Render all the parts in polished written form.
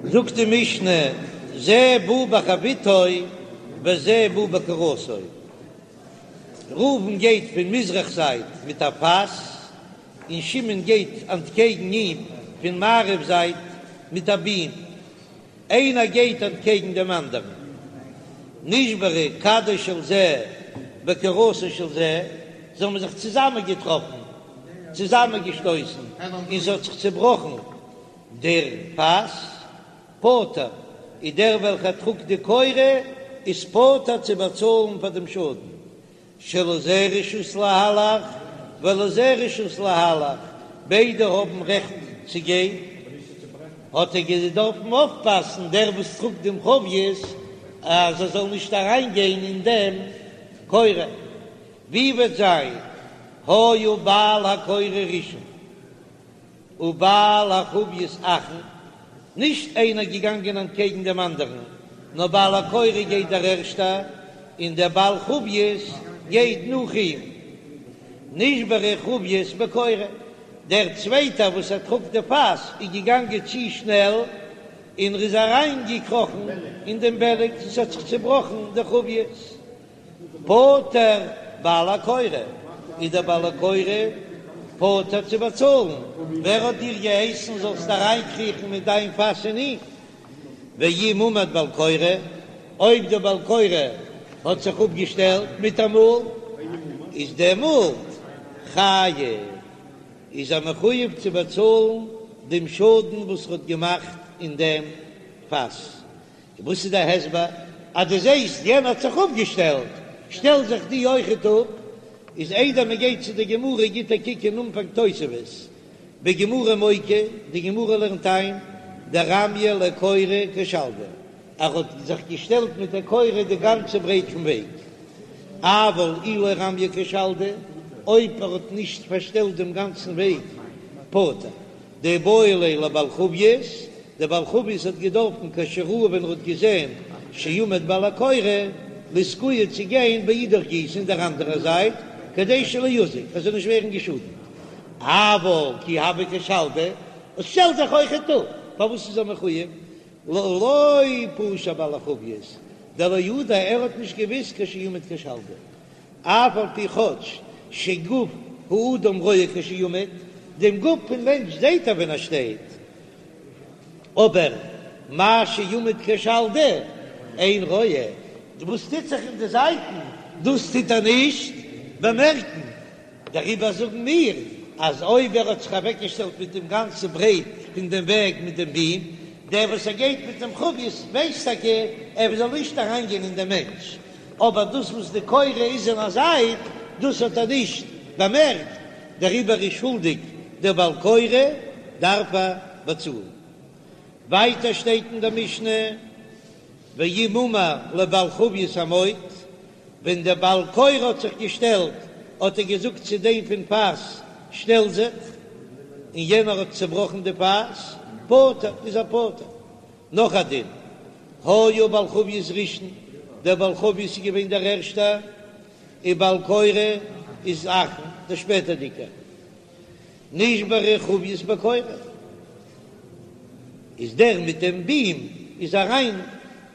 זאגט די משנה, זה בא בחביתו וזה בא בקורתו, ראובן גייט פון מזרח זייט מיט א פאס, און שמעון גייט אנטקעגן אים פון מערב זייט מיט א בים, איינער גייט אנטקעגן דעם אנדערן, נשברה כדו של זה בקורתו של זה, זיי האבן זיך צוזאמען געטראפן, צוזאמען געשטויסן, און ס'האט זיך צעבראכן דער פאס, פטור, איז דער וועלכער טראגט די קורה איז פטור צו באצאלן פאר דעם שאדן, שלזה רשות להלך ולזה רשות להלך, ביידע האבן רעכט צו גיין, האט ער געדארפן אויפפאסן דער וואס טראגט דעם חבית אז ער זאל נישט אריין גיין אין דעם קורה, ווי וועט זיין היה בעל הקורה ראשון ובעל החבית אחרון, נישט איינער געגאנגען אנטקעגן דעם אנדערן, נאר בעל הקורה גייט דער ערשטער, און דער בעל חבית גייט נאך אים. נשברה חבית בקורה, דער צווייטער וואס ער טראגט די פאס איז געגאנגען צו שנעל, און ער איז אריינגעקראכן אין דעם בערג און ס'האט זיך צעבראכן די חבית. פטור בעל הקורה, איז דער בעל הקורה פטור צו באצאלן, ווער האט דיר געהייסן זאלסט אריינקריכן מיט דיין פאס אין אים? ואם עמד בעל קורה, אויב דער בעל קורה האט זיך אפגעשטעלט מיטאמאל, איז דעמאלט חייב, איז ער מחויב צו באצאלן דעם שאדן וואס ער האט געמאכט אין דעם פאס. וואס איז דער הסבר אז דו זעסט יענער האט זיך אפגעשטעלט, שטעל זיך דו אויכעט אפ? איז איידער מען גייט צו די גמרא גיט א קוק אין אנפאנג תוספות בגמרא מוקי, די גמרא לערנט איין דרמיא לקורה כשלדא, ער האט זיך געשטעלט מיט די קורה די גאנצע ברייט פון וועג, אבל אי לא רמיא כשלדא, אויב ער האט נישט פארשטעלט דעם גאנצן וועג פטור. דאיבעי ליה לבעל חבית, דער בעל חבית האט געדארפן כשראה ווען ער האט געזען שעמד בעל הקורה לאתקויי צו גיין באידך גיסא אין דער אנדערער זייט כדי שלא יזיק ער זאל נישט ווערן געשאדנט, אבל כי הוה כשלדא, עס שטעלט זיך אויכעט אפ, פארוואס איז ער מחויב? לא פשע בעל החבית דלא ידע ער האט נישט געוויסט כשעמד כשלדא. אף על פי כאטש שגוף האדם רואה כשעומד, דעם גוף פון מענטש זעהט ער ווען ער שטייט, אבער מה שעומד כשלדא אין רואה, וואס טוט זיך אין די זייטן דאס טוט ער נישט באמערקן, דעריבער זאגן מיר אז אויב ער האט זיך אוועקגעשטעלט מיט דעם גאנצן ברייט פון דעם וועג מיט דעם בים, דער וואס ער גייט מיט דעם חבית ווייסט טאקע ער זאל נישט אריינגיין אין דעם מענטש, אבער דאס וואס די קורה איז אין א זייט, דאס האט ער נישט באמערקט, דעריבער איז שולדיג דער בעל קורה, דארף ער באצאלן. ווייטער שטייט אין דער משנה, ואם אמר לבעל חבית עמוד, ווען דער בעל קורה האט זיך געשטעלט, האט ער געזאגט צו דעם פון פאס, שטעל זיך, און יענער האט צעבראכן די פאס, פטור, איז ער פטור. נאך א דין, היה בעל חבית ראשון, דער בעל חבית איז געווען דער ערשטער, און בעל קורה איז אחרון, דער שפעטערדיגער. נשברה חבית בקורה, איז דער מיט דעם בים איז אריין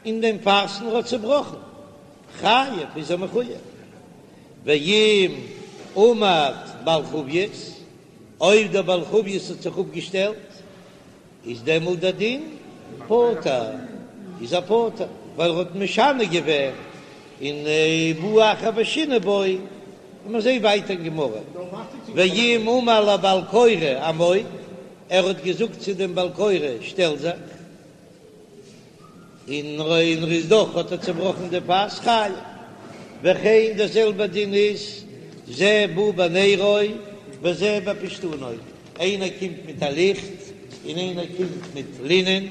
אין דעם פאס און האט צעבראכן, חייב איז ער מחויב. ואם עמד בעל חבית, אויב דער בעל חבית האט זיך אפגעשטעלט, איז דעמאלט דער דין פטור, איז ער פטור, ווייל ער האט משנה געווען און בא אחר ושינה בו, און מיר זעהן ווייטער אין גמרא, ואם אמר לבעל קורה עמוד, ער האט געזאגט צו דעם בעל קורה שטעל זיך. און און ר'איז דאך האט ער צובראכן די פאס חייב. וכן דער זעלבער דין איז זה בא בנרו וזה בפשתנו, איינער קומט מיט א ליכט און איינער קומט מיט לינען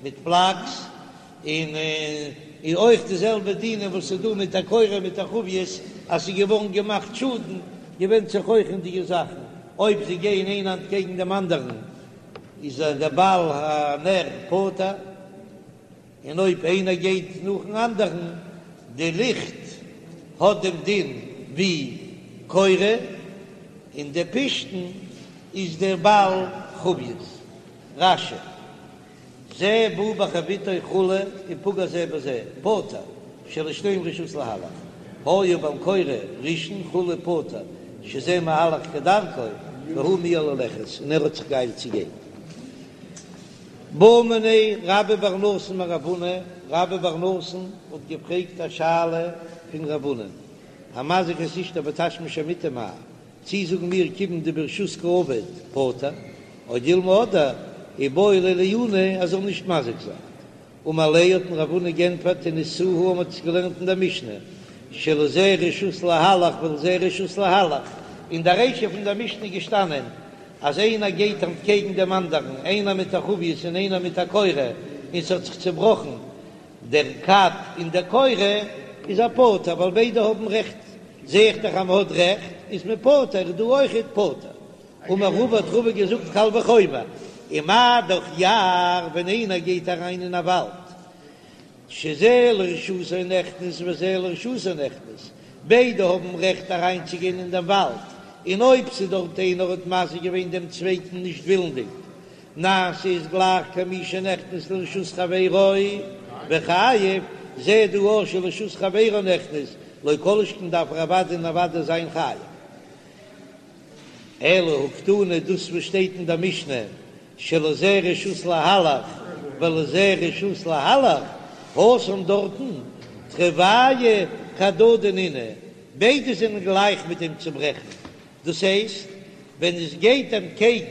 מיט פלאקס, און און אויך די זעלבע דינים וואס איז דא מיט א קורה מיט א חבית אז ס'איז געווארן געמאכט שאדן, געווענדט זיך אויך אין די זאכן אויב זיי גייען איינער אנטקעגן דעם אנדערן. איז דער בעל הנר פטור, און אויב איינער גייט נאכן אנדערן, די ליכט האט דעם דין ווי קורה, און די פשתן איז דער בעל חבית. רש"י. זה בא בחביתו כו' ופגע זה בזה, פטור, שלשניהם רשות להלך, היה בעל קורה ראשון כו' פטור, שזה מהלך כדרכו, והוא מיהר ללכת, און ער האט זיך געאיילט צו גיין. בעא מיניה רבה בר נתן מרב הונא, רבה בר נתן האט געפרעגט א שאלה פון רב הונא, המזיק את אשתו בתשמיש המיטה מהו, צי זאגן מיר כיוון דברשות קעביד פטור, או דילמא אדער איבעי ליה לעיוני ער זאל נישט מזיק זיין. אמר ליה האט אים רב הונא גענטפערט תניתוה מ'האט עס געלערנט אין דער משנה שלזה רשות להלך ולזה רשות להלך, אין דער רישא פון דער משנה איז געשטאנען אז איינער גייט אנטקעגן דעם אנדערן איינער מיט א חבית און איינער מיט א קורה און ס'האט זיך צעבראכן דער כד און דער קורה איז ער פטור ווייל ביידע האבן רעכט, זע איך דאך אז מ'האט רעכט איז מען פטור, איז דא אויכעט פטור. אמר רבא האט רבא געזאגט קל וחומר, ומה דאך יער ווען איינער גייט אריין אין א וואלד שזה לרשותו נכנס וזה לרשותו נכנס, ביידע האבן רעכט אריינצוגיין אין דעם וואלד, און אויב ס'איז דארט איינער האט מזיק געווען דעם צווייטן נישט ווילנדיג, נעשה איז גלייך כמי שנכנס לרשות חברו וחייב, זע דא אויך שלרשות חברו נכנס, לא כל שכן דארף ער אוודאי און אוודאי זיין חייב. אלא הא קתני דאס וואס שטייט אין דער משנה שלזה רשות להלך ולזה רשות להלך, התם דארטן תרוייהו כהדדי נינהו, ביידע זענען גלייך מיט דעם צוברעכן, דאס הייסט ווען עס גייט אנטקעגן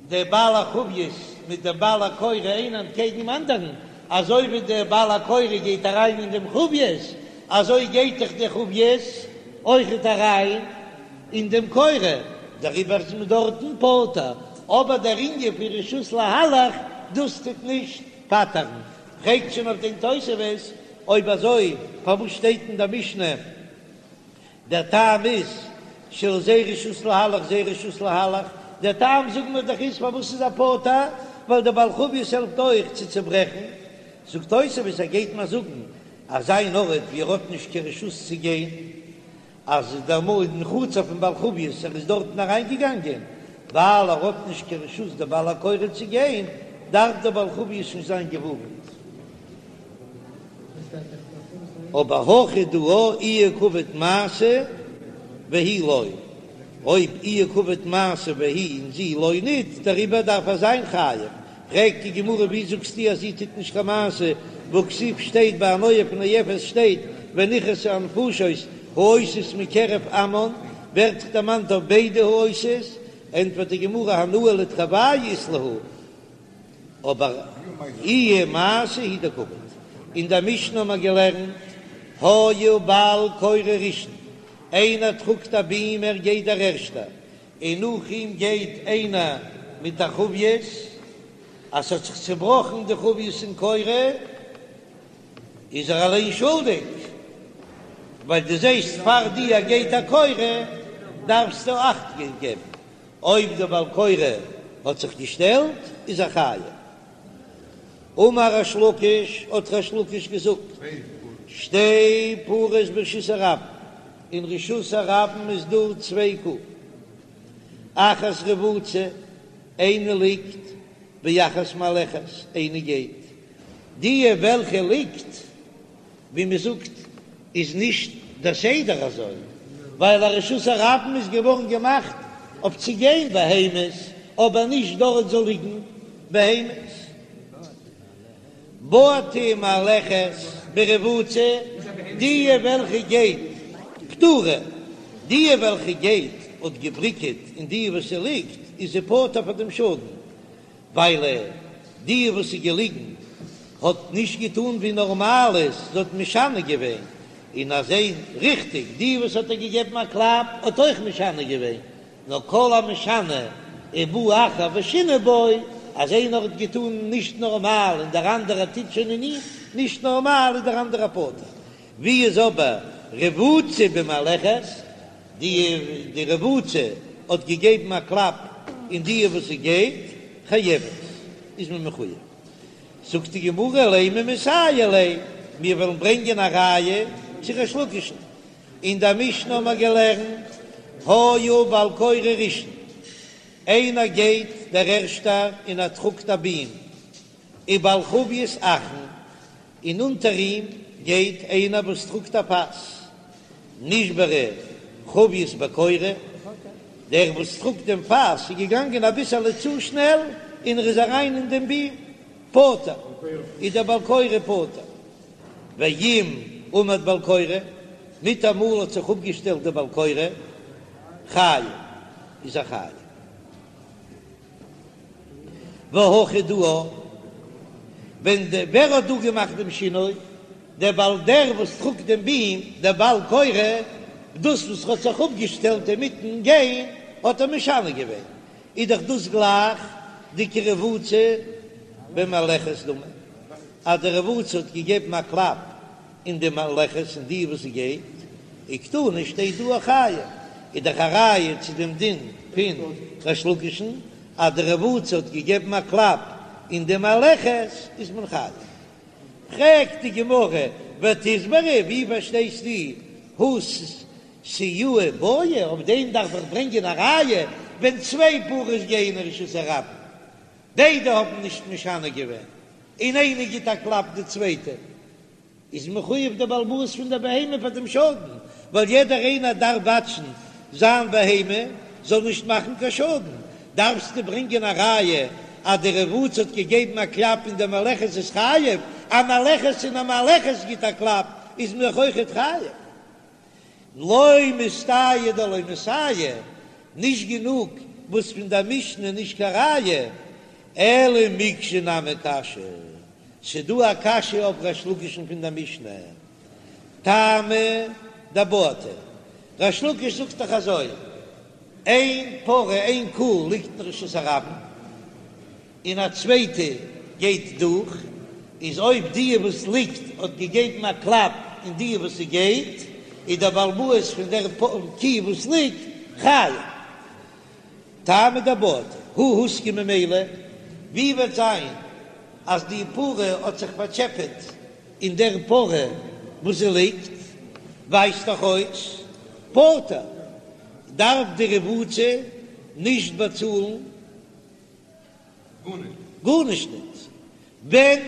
דער בעל החבית מיט דעם בעל הקורה איינער אנטקעגן דעם אנדערן, אזוי ווי דער בעל הקורה גייט אריין אין דעם חבית, אזוי גייט דאך דער חבית אויכעט אריין אין דעם קורה, דעריבער איז מען דארטן פטור, אבער דער ענין פון רשות להלך דאס טוט נישט פטר'ן. פרעגט שוין אויף דעם תוספות, אויב אזוי פארוואס שטייט אין דער משנה דער טעם איז שלזה רשות להלך זה רשות להלך, דער טעם זאגן מיר דאך איז פארוואס איז ער פטור, ווייל דער בעל חבית העלפט אויך צו צוברעכן, זאגט תוספות ער גייט מיר זאגן אז אין ארט ווי ער האט נישט קיין רשות צו גיין, אז דער מאל אין חצר פון בעל חבית ער איז דארטן אריין געגאנגען ווייל ער האט נישט קיין רשות דער בעל הקורה צו גיין, דארף דער בעל חבית נישט זיין געווארנט. אבער הכא דא איהו קעביד מעשה והיא לא, אויב איהו קעביד מעשה והיא און זי לא ניט, דעריבער דארף ער זיין חייב. פרעגט די גמרא ווי זאגסטו אז זי טוט נישט קיין מעשה, והכתיב שטייט ביי א נואף נואפת שטייט ונכרתו הנפשות העושות מקרב עמם, ווערט דאך דערמאנט אויף ביידע העושות, ענטפערט די גמרא הנאה לתרוייהו אית להו, אבער איהי מעשה הוא דקעביד. אין דער משנה האבן מיר געלערנט, היה בעל קורה ראשון, איינער טראגט א ביעם ער גייט דער ערשטער, און נאך אים גייט איינער מיט א חבית, אז ס'האט זיך צעבראכן די חבית און קורה, איז ער אליין שולדיג, ווייל דו זעסט פאר דיר גייט א קורה, דארפסטו אכט געבן. אויב דער בעל קורה האט זיך געשטעלט איז ער חייב. אמר ריש לקיש, האט ריש לקיש געזאגט, שתי פרות ברשות הרבים, אין רשות הרבים איז דא צוויי קו, אחת רבוצה, איינע ליגט, ואחת מהלכת, איינע גייט, די וועלכע ליגט ווי מען זאגט איז נישט דער סדר אזוי, ווייל א רשות הרבים איז געווארן געמאכט אויף צו גיין בהמות, אבער נישט דארט זאל ליגן בהמות. בעטה מהלכת ברבוצה, די וועלכע גייט פטורה, די וועלכע גייט האט געבריקעט אין די וואס ס'ליגט איז זי פטור פאר דעם שאדן, ווייל די וואס איז געליגן האט נישט געטאן ווי נארמאל איז, זי האט משנה געווען, און אזוי ריכטיג די וואס האט איר געגעבן א קלאפ האט אויך משנה געווען, נאר כל המשנה ובא אחר ושינה בו, אז איינער האט געטאן נישט נארמאל און דער אנדערער טוט שוין אין אים נישט נארמאל איז דער אנדערער פטור, ווי איז אבער רבוצה במהלכת? די די רבוצה האט געגעבן א קלאפ אין די וואס זי גייט, חייבת, איז מען מחויב. זאגט די גמרא לימא מסייע ליה, מיר וועלן ברענגען א ראיה צו ריש לקיש'ן. אין דער משנה האבן מיר געלערנט, היה בעל קורה ראשון, איינער גייט דער ערשטער און ער טראגט א ביעם. ובעל חבית אחרון, און אונטער אים גייט איינער וואס טראגט א פאס, נשברה חבית בקורה, דער וואס טראגט דעם פאס איז געגאנגען אביסעלע צו שנעל און ער איז אריין אין דעם ביעם, פטור, איז דער בעל קורה פטור. ואם עמד בעל קורה, מיטאמאל האט זיך אפגעשטעלט דער בעל קורה, חייב, איז ער חייב. והכא דא, ווען די ווער האט דא געמאכט דעם שינוי? דער בעל דער וואס טראגט דעם ביעם, דער בעל קורה, דאס וואס האט זיך אפגעשטעלט אינמיטן גיין האט ער משנה געווען, איז דאך דאס גלייך די כרבוצה במהלכת דמי, אז די רבוצה האט געגעבן א קלאפ אין די מהלכת אין די וואס זי גייט, וקתני שטייט דא חייב, איז דאך א ראיה צו דעם דין פון ריש לקיש'ן אז די רבוצה האט געגעבן א קלאפ אין די מהלכת איז מען חייב. פרעגט די גמרא ותסברא ווי פארשטייסטו הא סיועי בעי, אויף דעם דארף איך ברענגען א ראיה ווען צוויי פרות גייען אין רשות הרבים ביידע האבן נישט משנה געווען און איינער גיט א קלאפ די צווייטע איז מחויב דער בעל הבית פון דער בהמה פאר דעם שאדן, ווייל יעדער איינער דארף וואטשן זיין בהמה זאל נישט מאכן קיין שאדן, דארפסטו ברענגען א ראיה אז די רבוצה האט געגעבן א קלאפ אין די מהלכת איז חייב, א מהלכת אין א מהלכת גיט א קלאפ איז מען דאך אויכעט חייב. לא מסתייה דלא מסייע, נישט גענוג וואס פון דער משנה נישט קיין ראיה, אלא מקשה נמי קשיא, ס'דא א קשיא אויף ריש לקיש'ן פון דער משנה, טעמא דבעטה, ריש לקיש זאגט דאך אזוי, איין פרה איין קו ליגט אין רשות הרבים, און א צווייטע גייט דורך, איז אויב די וואס ליגט האט געגעבן א קלאפ אין די וואס ס'גייט, איז דער בעל הבית פון דער קו וואס ליגט חייב. טעמא דבעטה, הא הוזקה ממילא, ווי וועט זיין אז די פרה האט זיך פארטשעפעט אין דער פרה וואס זי ליגט, ווייזט דאך אויס פטור, דארף די רבוצה נישט באצאלן גארנישט ניט. ווען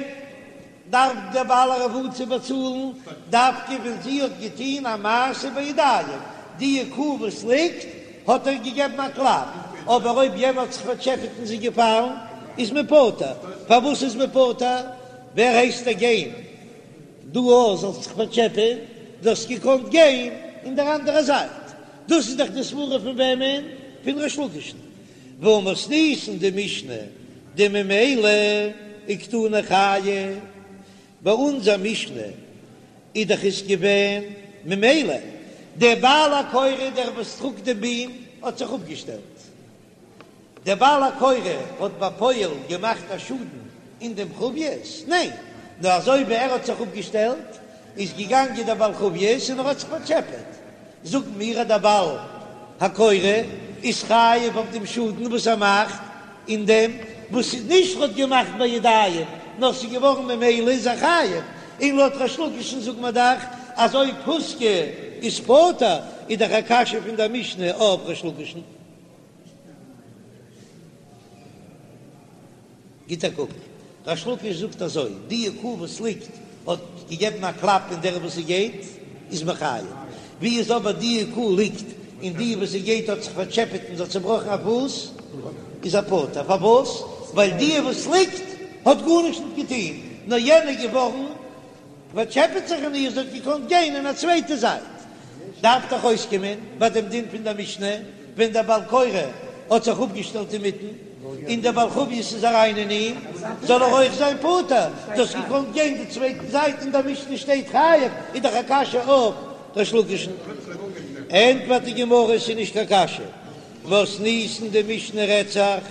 דארף דער בעל הרבוצה באצאלן? דווקא ווען זי האט געטון א מעשה בידיים, די קו וואס ליגט האט ער געגעבן א קלאפ, אבער אויב יענער האט זיך פארטשעפעט און זי געפאלן איז מען פטור. פארוואס איז מען פטור? ווער הייסט דיר גיין דא אויך זאלסט זיך פארטשעפען? דו האסט געקאנט גיין אין דער אנדערע זייט. דאס איז דאך די סברה פון וועמען? פון ריש לקיש'ן. והא מתניתין די משנה דממילא וקתני חייב, ביי אונזער משנה איז דאך עס געווען ממילא, דער בעל הקורה דער וואס טראגט דעם ביעם האט זיך אפגעשטעלט, דער בעל הקורה האט בפועל געמאכט א שאדן אין דעם חבית? ניין, נאר אזוי ווי ער האט זיך אפגעשטעלט איז געגאנגען דער בעל חבית און ער האט זיך פארטשעפעט, זאגן מיר אז דער בעל הקורה איז חייב אויף דעם שאדן וואס ער מאכט אין דעם וואס איז נישט האט געמאכט בידיים נאר ס'איז געווארן ממילא איז ער חייב, און לויט ריש לקיש'ן זאגט מען דאך אז אויב הוזקה איז פטור איז דאך א קשיא פון דער משנה אויף ריש לקיש'ן. גיט א קוק, ריש לקיש זאגט אזוי, די קו וואס ליגט האט געגעבן א קלאפ אין דער וואס ס'גייט איז מען חייב, ווי איז אבער די קו ליגט און די וואס ס'גייט האט זיך פארטשעפעט און זי האט צובראכן א פוס איז ער פטור, פארוואס? ווייל די וואס ליגט האט גארנישט נישט געטון נאר יענע געווארן פארטשעפעט זיך אין איר, זי האט געקאנט גיין אין א צווייטע זייט. דארף דאך אויסקומען ביי דעם דין פון דער משנה, ווען דער בעל קורה האט זיך אפגעשטעלט אינמיטן, און דער בעל חבית איז אריין אין אים, זאל ער אויך זיין פטור, דו האסט געקאנט גיין די צווייטע זייט, אין דער משנה שטייט חייב, איז דאך א קשיא אויף ריש לקיש'ן. ענטפערט די גמרא, ס'איז נישט קיין קשיא, מתניתין די משנה רעדט זיך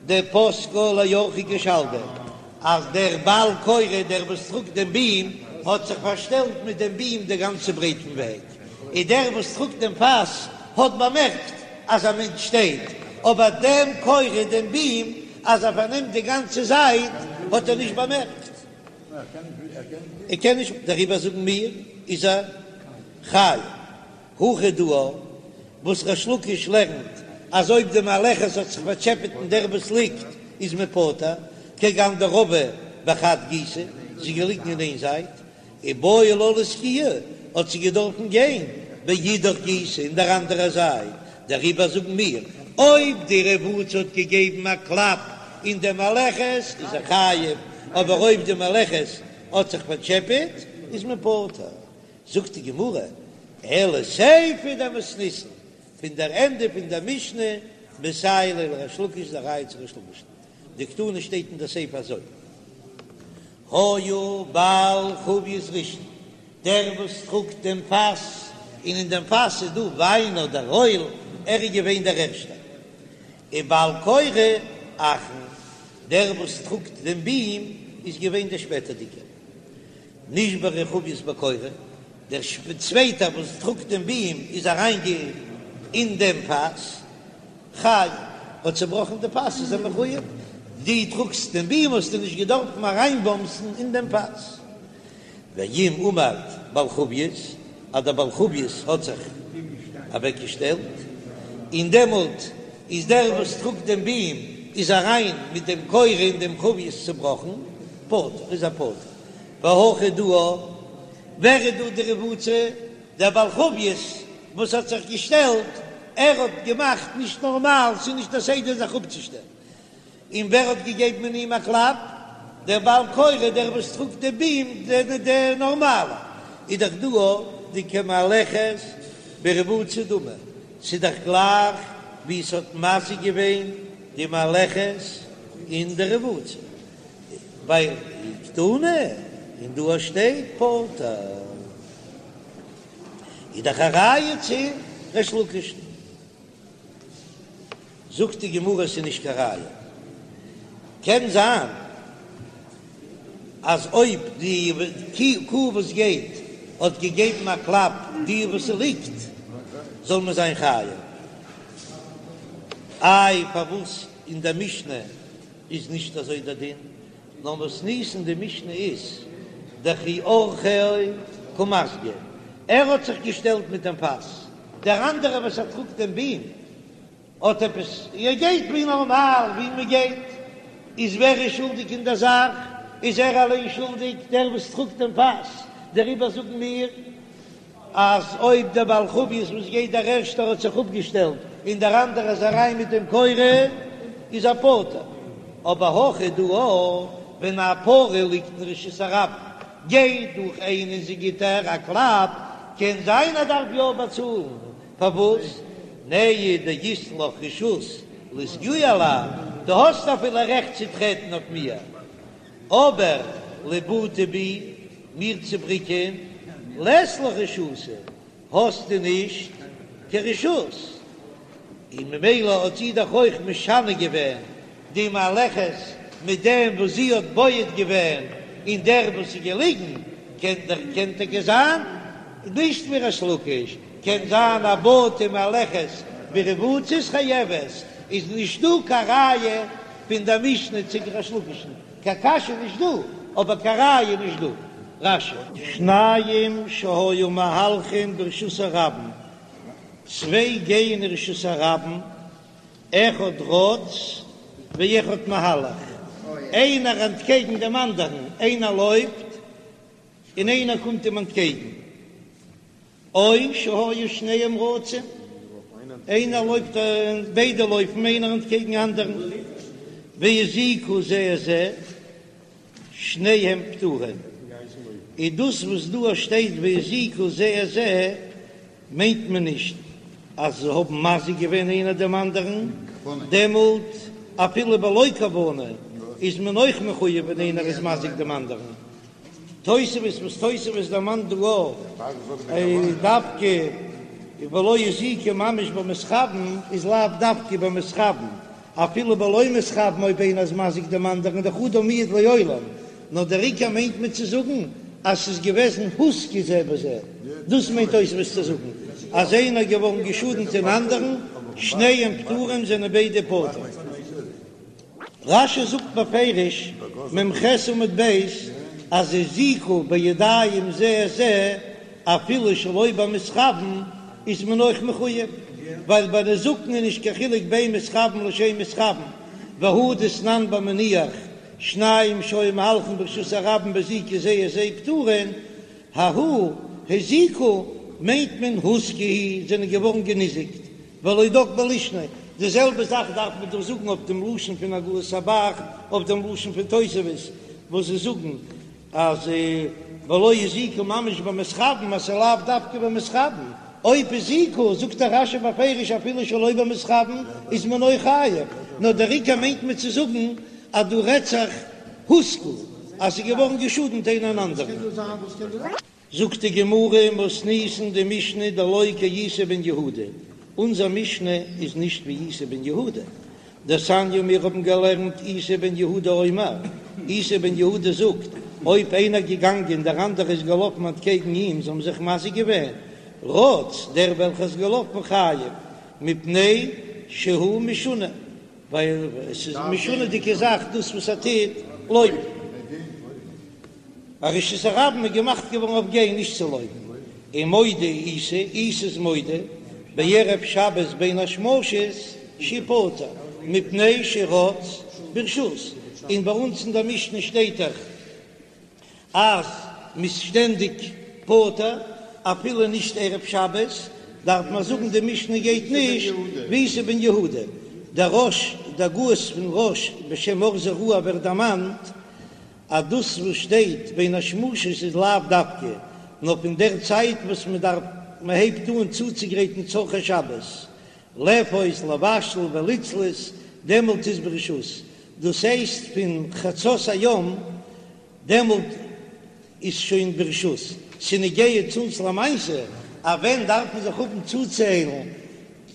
דפסקה לאורחא כשלדא, אז דער בעל קורה, דער וואס טראגט דעם ביעם, האט זיך פארשטעלט מיט דעם ביעם די גאנצע ברייט פון וועג, און דער וואס טראגט דעם פאס האט באמערקט אז א מענטש שטייט, אבער דעם קורה, דעם ביעם, אז ער פארנעמט די גאנצע זייט, האט ער נישט באמערקט. ער קען נישט, דעריבער זאגן מיר, איז ער חייב. הכא דא וואס ריש לקיש לערנט אז אויב די מהלכת האט זיך פארטשעפעט אין דער וואס ליגט איז מען פטור, כגון דרבא. בחד גיסא, זי איז געליגן אין איין זייט, איבעי לה לאסקויי, האט זי געדארפן גיין באידך גיסא אין דער אנדערער זייט, דעריבער זאגן מיר, אויב די רבוצה האט געגעבן א קלאפ אין די מהלכת איז ער חייב, אבער אויב די מהלכת האט זיך פארטשעפעט איז מען פטור. זאגט די גמרא, אלא סיפא דמתניתין, פון דער ענדע פון דער משנה, מסייע ליה לריש לקיש איז א ראיה צו ריש לקיש'ן, דקתני שטייט אין דער סיפא אזוי, היה בעל חבית ראשון, דער וואס טראגט דעם פאס, און אין דעם פאס איז דא וויין אדער אויל, ער איז געווען דער ערשטער. ובעל קורה אחרון, דער וואס טראגט דעם בים איז געווען דער שפעטערדיגער. נשברה חבית בקורה, דער צווייטער וואס טראגט דעם בים איז אריין אין דעם פאס, חייב, האט צעבראכן די פאס איז ער מחויב, דו טראגסט דעם בים האסטו נישט געדארפן אריינבאמסן אין דעם פאס. ואם עמד בעל חבית, אז דער בעל חבית האט זיך אוועקגעשטעלט, און דעמאלט איז דער וואס טראגט דעם בים איז אריין מיט דעם קורה אין דעם חבית צובראכן, פטור, איז ער פטור. והכא דא, ווער איז דא די רבוצה? דער בעל חבית וואס האט זיך געשטעלט, ער האט געמאכט נישט נארמאל, ס'איז נישט א סדר זיך אפצושטעלן. און ווער האט געגעבן אין אים א קלאפ? דער בעל קורה, דער וואס טראגט די בים, דער נארמאלער. איז דאך דא דכמהלכת ברבוצה דמי, ס'איז דאך גלייך ווי ס'האט מזיק געווען די מהלכת אין די רבוצה, ווייל וקתני, און דא שטייט פטור. איז דאך א ראיה צו ריש לקיש'ן. זאגט די גמרא ס'איז נישט קיין ראיה. קען זיין אז אויב די קו וואס גייט האט געגעבן א קלאפ די וואס ס'ליגט זאל מען זיין חייב. איי פארוואס אין די משנה איז נישט אזוי דער דין? נאר מתניתין די משנה איז דכי אורחיה קא מסגי, ער האט זיך געשטעלט מיט דעם פאס, דער אנדערער וואס ער טראגט דעם בים האט עפעס, ער גייט ווי נארמאל ווי מען גייט, איז ווער איז שולדיג אין דער זאך? איז ער אליין שולדיג דער וואס טראגט דעם פאס, דעריבער זאגן מיר אז אויב דער בעל חבית וואס גייט דער ערשטער האט זיך אפגעשטעלט און דער אנדערער איז אריין מיט דעם קורה איז ער פטור, אבער הכא דא ווען א פרה ליגט אין רשות הרבים גייט דורך איינער און זי גיט איר א קלאפ קען זיין ער דארף יא באצאלן, פארוואס? נהי דאית לך רשות לאסגויי עלי, דו האסט אפילו רעכט צו טרעטן אויף מיר, אבער לבעוטי בי, מיר צו בריקען, לית לך רשותא, האסטו נישט קיין רשות, און ממילא האט זי דאך אויך משנה געווען די מהלכת מיט דעם וואס זי האט בועט געווען אין דער וואס איז געליגן, קען דאך קען טאקע זיין נישט ווי ריש לקיש, קען זיין א בעטה מהלכת ברבוצה איז חייבת, איז נישט דא קיין ראיה פון דער משנה צו ריש לקיש'ן, קיין קשיא נישט דא, אבער קיין ראיה נישט דא. רש"י. שניים שהיו מהלכין ברשות הרבים, צוויי גייען אין רשות הרבים, אחד רץ ואחד מהלך, איינער אנטקעגן דעם אנדערן, איינער לויפט און איינער קומט אים אנטקעגן, או שהיו שניהם רצים, איינער לויפט ביידע לויפן איינער אנטקעגן אנדערן, והזיקו זה את זה, שניהם פטורים, איז דאס וואס דא שטייט והזיקו זה את זה מיינט מען נישט אז זיי האבן מזיק געווען איינער דעם אנדערן, דעמאלט אפילו בלא כוונה איז מען אויך מחויב ווען איינער איז מזיק דעם אנדערן. תוספות וואס תוספות דערמאנט דא אויך דווקא ולא הזיקו ממש במתכוין איז לאו דווקא במתכוין, אפילו בלא מתכוין אויב איינער איז מזיק דעם אנדערן איז דאך אדם מועד לעולם, נאר דער עיקר מיינט מען צו זאגן אז ס'איז געוועזן הוזקו זה בזה, דאס מיינט תוספות צו זאגן אז איינער איז געווארן געשאדנט אין אנדערן, שניהם פטורים זענען ביידע פטור. רש"י זאגט בפירוש, מ"ח עמוד ב', אז הזיקו בידיים זה את זה אפילו שלא במתכוין איז מען אויך מחויב, ווייל ביי נזקין איז נישט קיין חילוק בין מתכוין לשאין מתכוין, והא דתנן במניח. שניים שהיו מהלכין ברשות הרבים והזיקו זה את זה פטורין, ההוא הזיקו מיינט מען הוזקו זענען געווארן געניזיקט, ולא דק בלישנא, די זעלבע זאך דארף מען דא זאגן אויף דעם לשון פון הגהות הב"ח, אויף דעם לשון פון תוספות וואס זיי זאגן אז ולא הזיקו ממש במתכוין אז ס'איז לאו דווקא במתכוין, אויב הזיקו זאגט דער רש"י בפירוש אפילו שלא במתכוין איז מען אויך חייב, נאר דער עיקר מיינט מען צו זאגן אז דא רעדט זיך הוזקו אז ס'איז געווארן געשאדנט איינער אן אנדערן. זאגט די גמרא מתניתין די משנה דלא כאיסי בן יהודה, אונזער משנה איז נישט ווי איסי בן יהודה, דתניא מיר האבן געלערנט איסי בן יהודה אומר, איסי בן יהודה זאגט, אויב איינער געגאנגען דער אנדערע איז געלאפן אנטקעגן אים זיי האבן זיך מזיק געווען, רץ דער וועלכער איז געלאפן חייב, מפני שהוא משונה. ווייל עס איז משונה'דיגע זאך דאס וואס ער טוט לויפן. א רשות הרבים איז געמאכט געווארן אויף גיין נישט צו לויפן. ומודה איסי, איסי איז מודה, בערב שבת בין השמשות שהוא פטור, מפני שרץ ברשות, און ביי אונז אין דער משנה שטייט דאך אז מ'איז שטענדיג פטור אפילו נישט ערב שבת, דארף מען זאגן די משנה גייט נישט ווי איסי בן יהודה, דער רא"ש, די הגהות פון רא"ש בשם אור זרוע ווערט דערמאנט אז דאס וואס שטייט בין השמשות איז לאו דווקא נאר פון דער צייט וואס מען דארף מען הייבט אן צוצוגרייטן צרכי שבת, לאפות לבשל ולצלות, דעמאלט איז ברשות, דאס הייסט פון חצות היום דעמאלט איז שוין ברשות, ס'נוגע צו אונז למעשה, אז ווען דארף מען זיך האבן צוציילן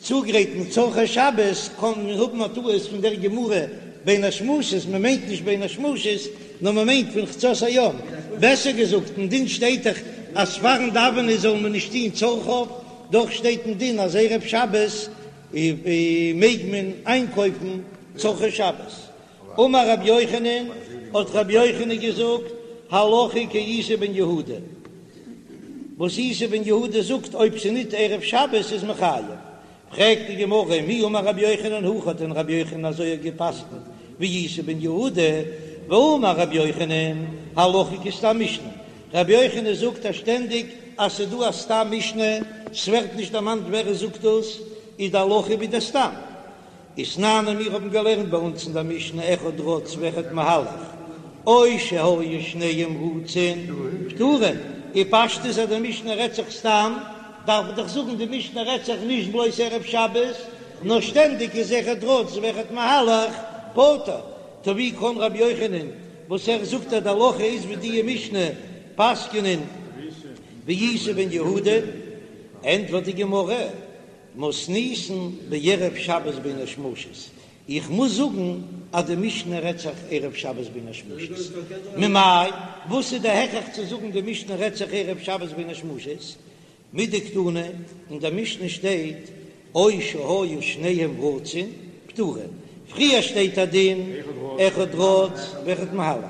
צוגרייטן צרכי שבת, קען מען האבן א טעות פון דער גמרא בין השמשות, מען מיינט נישט בין השמשות, נאר מען מיינט פון חצות היום, בעסער געזאגט, אין דין שטייט דאך אז פארן דאווענען זאל מען נישט טון צרכיו, דאך שטייט אין דין אז ערב שבת מעג מען איינקויפן צרכי שבת. אמר רבי יוחנן, האט רבי יוחנן געזאגט, הלכה כאיסי בן יהודה, וואס איסי בן יהודה זאגט אויב ס'ניט ערב שבת איז מען חייב. פרעגט די גמרא, מי אמר רבי יוחנן הכי, האט דען רבי יוחנן אזוי געפסקנט ווי איסי בן יהודה? והאמר רבי יוחנן, הלכה כסתם משנה, רבי יוחנן זאגט אז שטענדיג אז ס'דא א סתם משנה, ס'ווערט נישט דערמאנט ווער עס זאגט דאס, איז די הלכה ווי די סתם. ותנן און מיר האבן געלערנט ביי אונז אין דער משנה אחד רץ ואחד מהלך, או שהיו שניהם רצין פטורין, און פשטות אז די משנה רעדט זיך סתם, דארף איך דאך זאגן די משנה רעדט זיך נישט בלויז ערב שבת, נאר שטענדיג איז אחד רץ ואחד מהלך פטור, טא ווי קען רבי יוחנן וואס ער זאגט אז די הלכה איז ווי די משנה פסק'נען ווי איסי בן יהודה? ענטפערט די גמרא, מתניתין בערב שבת בין השמשות, איך מוז זאגן אז די משנה רעדט זיך ערב שבת בין השמשות, ממאי? וואס איז די הכרח צו זאגן די משנה רעדט זיך ערב שבת בין השמשות? מדקתני, אין די משנה שטייט או שהיו שניהם רצין פטורין, פריער שטייט א דין אחד רץ ואחד מהלך,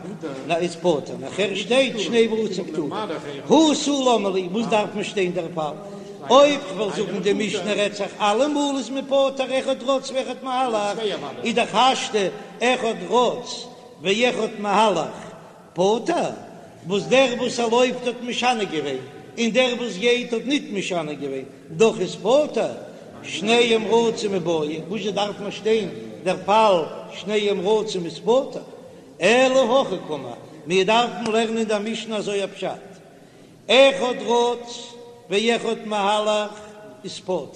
נא איז פטור, נאכער שטייט שניהם רצין פטורין, הא תו למה לי, וואס דארף מען שטיין דער פאל? אויב כ'וועל זאגן די משנה רעדט זיך אלעמאל איז מען פטור אחד רץ ואחד מהלך, איז דאך השתא אחד רץ ואחד מהלך פטור, וואס דער וואס ער לויפט האט משנה געווען און דער וואס גייט האט ניט משנה געווען, דאך איז פטור, שניהם רצים מיבעיא, וואזשע דארף מען שטיין דער פאל שניהם רצים איז פטור, אלא הכי קאמר, מיר דארפן לערנען די משנה אזוי א פשט, אחד רץ ואחד מהלך איז פטור.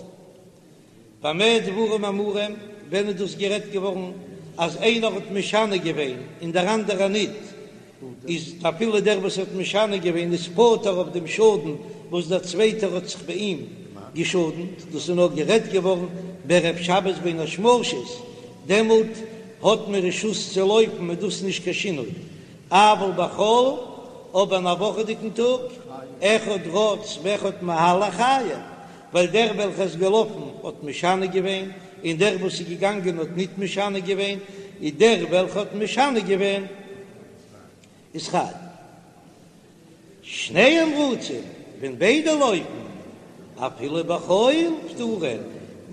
במה דברים אמורים, ווען איז דאס גערעדט געווארן אז איינער האט משנה געווען און דער אנדערער ניט, איז אפילו דער וואס האט משנה געווען איז פטור אויף דעם שאדן וואס דער צווייטער האט זיך ביי אים געשאדנט, דאס איז נאר גערעדט געווארן בערב שבת בין השמשות, דעמאלט האט מען רשות צו לויפן איז דאס נישט קיין שינוי, אבל בחול, אבער אין א וואכעדיגן טאג, אחד רץ ואחד מהלך חייב, ווייל דער וועלכער איז געלאפן האט משנה געווען, און דער וואס איז געגאנגען האט ניט משנה געווען, איז דער וועלכער האט משנה געווען איז חייב. שניהם רצים, ווען ביידע לויפן, אפילו בחול פטורין,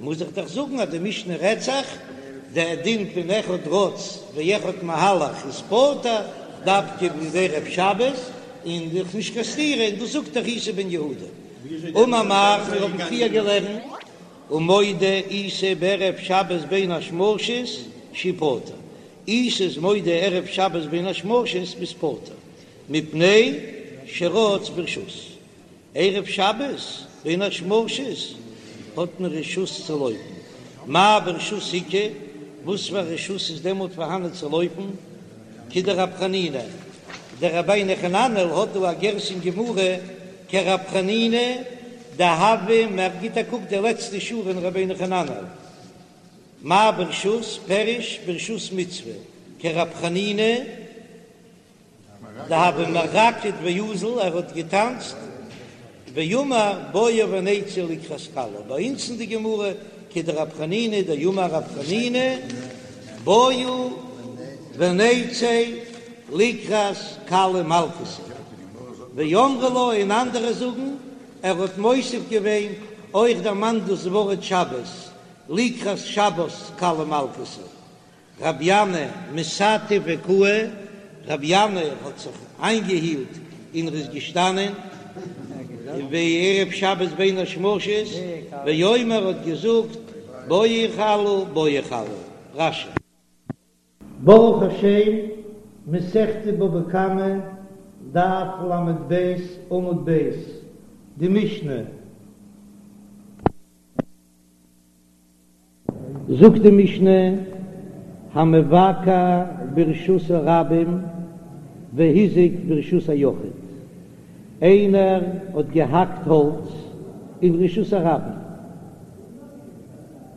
מוז איך דאך זאגן אז די משנה רעדט זיך. דער דין פון אחד רץ ואחד מהלך איז פטור דווקא בערב שבת, און דאך נישט קיין סתירה, און דאס זאגט דאך איסי בן יהודה. אמר מר, מיר האבן פריער געלערנט, ומודה איסי בערב שבת בין השמשות שהוא פטור, איסי איז מודה ערב שבת בין השמשות ביסט פטור, מפני שרץ ברשות. ערב שבת בין השמשות האט מען רשות צו לויפן, מאי ברשות איכא, וואס פאר רשות איז דעמאלט פארהאנען צו לויפן? כדרב חנינא, דער רבינו חננאל האט דא א גירסא אין גמרא כרב חנינא דהוה, מען גיט א קוק די לעצטע שורה אין רבינו חננאל, מאי ברשות פירוש ברשות מצוה, כרב חנינא. דהוה מרקד ואזיל, ער האט געטאנצט, ואמר בואו ונצא לקראת כלה, ביי אונז אין די גמרא כדרב חנינא דאמר רב חנינא בואו ונצא לקראת כלה מלכתא, ואמרי לה און אנדערע זאגן ער האט מוסיף געווען אויך דערמאנט דאס ווארט שבת לקראת שבת כלה מלכתא, רבי ינאי מתעטף וקאי, רבי ינאי האט זיך איינגעהילט און ער איז געשטאנען בערב שבת בין השמשות, ואומר האט געזאגט בואי כלה בואי כלה. רש"י. ברוך השם, מסכת בבא קמא, דף ל"ב, עמוד ב', די משנה. זאגט די משנה, המבקע ברשות הרבים והזיק ברשות היחיד, איינער האט געהאקט האלץ אין רשות הרבים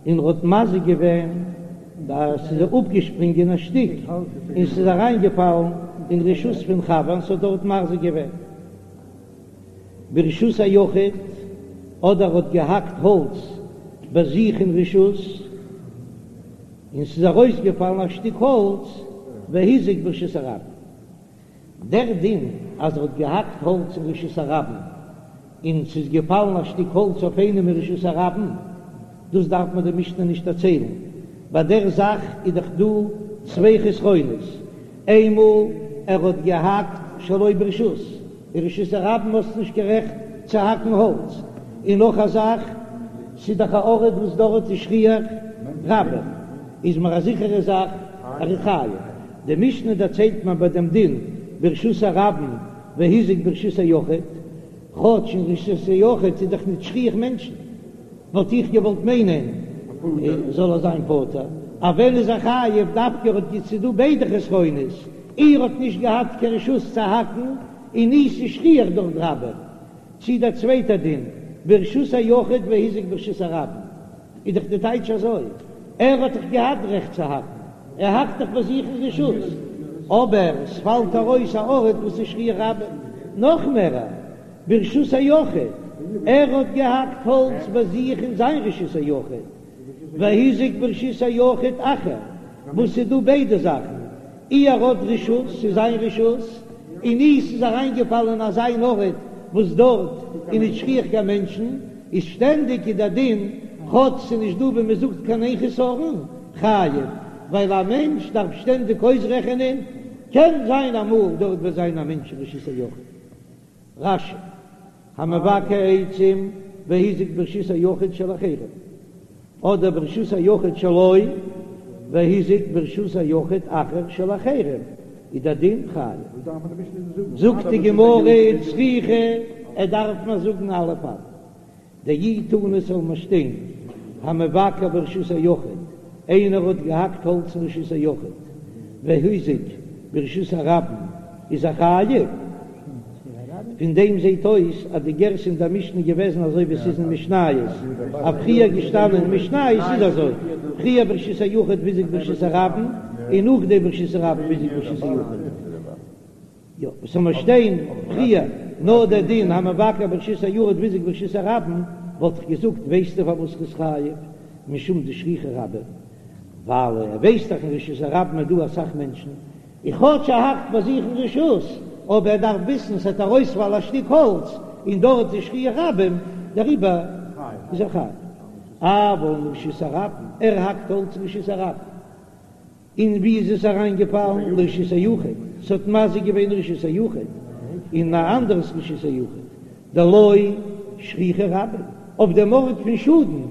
און ער האט מזיק געווען אז ס'איז אפגעשפרינגען א שטיק און ס'איז אריינגעפאלן אין רשות פון חבר און ס'האט דארט מזיק געווען. ברשות היחיד, אדער האט געהאקט האלץ ביי זיך אין רשות, און ס'איז ארויסגעפאלן א שטיק האלץ, והזיק ברשות הרבים. דער דין אז ער האט געהאקט האלץ אין רשות הרבים, און ס'איז געפאלן א שטיק האלץ אויף איינעם אין רשות הרבים, דאס דארף מיר די משנה נישט דערציילן, ביי דער זאך איז דאך דא צוויי חסרונות, איינמאל ער האט געהאקט שלא ברשות, אין רשות הרבים האסט נישט קיין רעכט צו האקן האלץ, און נאך א זאך, ס'איז דאך א ארט וואס דארט איז שכיח רבים, איז מיר א זיכערע זאך ער איז חייב. די משנה דערציילט מיר ביי דעם דין ברשות הרבים והזיק ברשות היחיד, כאטש אין רשות היחיד איז דאך נישט שכיח מענטשן, וואלט איך געוואלט מיינען זאל ער זיין פטור, אבער ווען איז ער חייב דווקא ער האט ס'איז דא ביידע חסרונות, אי ער האט נישט געהאט קיין רשות צו האקן, און אי ס'איז שכיח דארט רבים. צי דער צווייטער דין, ברשות היחיד והזיק ברשות הרבים, איז דאך די טייטש אזוי, ער האט דאך געהאט רעכט צו האקן, ער האקט דאך ביי זיך אין רשות, אבער ס'פאלט ארויס א ארט וואס איז שכיח רבים, נאך מער, ברשות היחיד, ער האט געהאקט האלץ ביי זיך אין זיין רשות היחיד, והזיק ברשות היחיד אחר, וואס ס'איז דא ביידע זאכן, אי ער האט רשות, ס'איז זיין רשות, און אי ס'איז אריינגעפאלען אין אזא אן ארט וואס דארט איז נישט שכיח קיין מענטשן, איז שטענדיג איז דער דין, כאטש ס'איז נישט דא ווי מ'זאגט קיין איין חסרון, חייב, ווייל א מענטש דארף שטענדיג אויסרעכענען, קען זיין אמאל דארט וועט זיין א מענטש אין רשות היחיד. רש"י, המבקע עצים והזיק ברשות היחיד של אחרים, אדער ברשות היחיד שלו והזיק ברשות היחיד אחר של אחרים, איז דער דין חייב. זאגט די גמרא וצריכא, ער דארף מיר זאגן אלע פאלן. דאי תנא ס'זאל מיר שטיין המבקע ברשות היחיד, איינער האט געהאקט האלץ אין רשות היחיד והזיק ברשות הרבים איז ער חייב, פון דעם זעט אויס אז די גירסא אין דער משנה איז געוועזן אזוי ווי עס איז אין משניות, אז פריער געשטאנען אין משניות איז אזוי, פריער ברשות היחיד והזיק ברשות הרבים און נאכדעם ברשות הרבים והזיק ברשות היחיד. יא, וואס זאל מיר שטיין פריער נאר דער דין המבקע ברשות היחיד והזיק ברשות הרבים, וואלט איך געזאגט ווייסטו פארוואס ר'איז חייב משום דשכיחי רבים, ווייל ער ווייסט דאך אין רשות הרבים איז דא אסאך מענטשן, און כאטש ער האקט ביי זיך אין רשות, אבער ער דארף וויסן ס'עט ארויספאלן א שטיק האלץ און דארט איז שכיח רבים, דעריבער איז ער חייב. אבל מרשות הרבים, ער האקט האלץ אין רשות הרבים. און ווי איז עס אריינגעפאלן? לרשות היחיד, ס'האט מזיק געווען רשות היחיד, אין א אנדערס רשות היחיד, דלא שכיחי רבים, אויף דעם ארט פון שאדן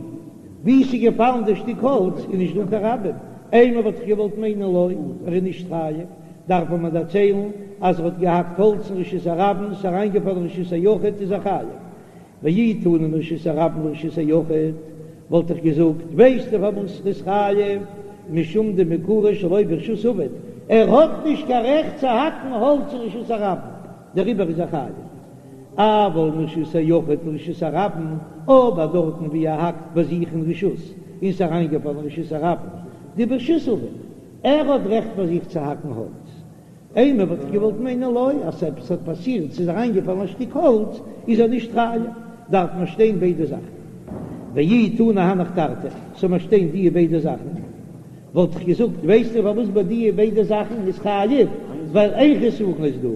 ווי ס'איז געפאלן די שטיק האלץ איז נישט דא קיין רבים, אימא וואלט איך געוואלט מיינען לא, ער איז נישט חייב, דארף מען מיר דערציילן אז ער האט געהאקט האלץ אין רשות הרבים, ס'איז אריינגעפאלן אין רשות היחיד איז ער חייב. ואי תנא מרשות הרבים לרשות היחיד, וואלט איך געזאגט, ווייסטו פארוואס ר'איז חייב? משום דמעיקרא שלא ברשות עביד, ער האט נישט קיין רעכט צו האקן האלץ אין רשות הרבים, דעריבער איז ער חייב. אבל מרשות היחיד לרשות הרבים, אבער דארטן ווי ער האקט ביי זיך אין רשות און ס'איז אריינגעפאלן אין רשות הרבים, דברשות עביד, ער האט רעכט ביי זיך צו האקן האלץ, אימא וואלט איך געוואלט מיינען לא, אז עפעס האט פאסירט, ס'איז אריינגעפאלן א שטיק האלץ, איז ער נישט חייב, דארף מען שטיין ביידע זאכן. ואי תנא הנך תרתי, זאל מען שטיין דיע ביידע זאכן, וואלט איך געזאגט, ווייסטו פארוואס ביי דיע ביידע זאכן איז חייב, ווייל איין חסרון איז דא,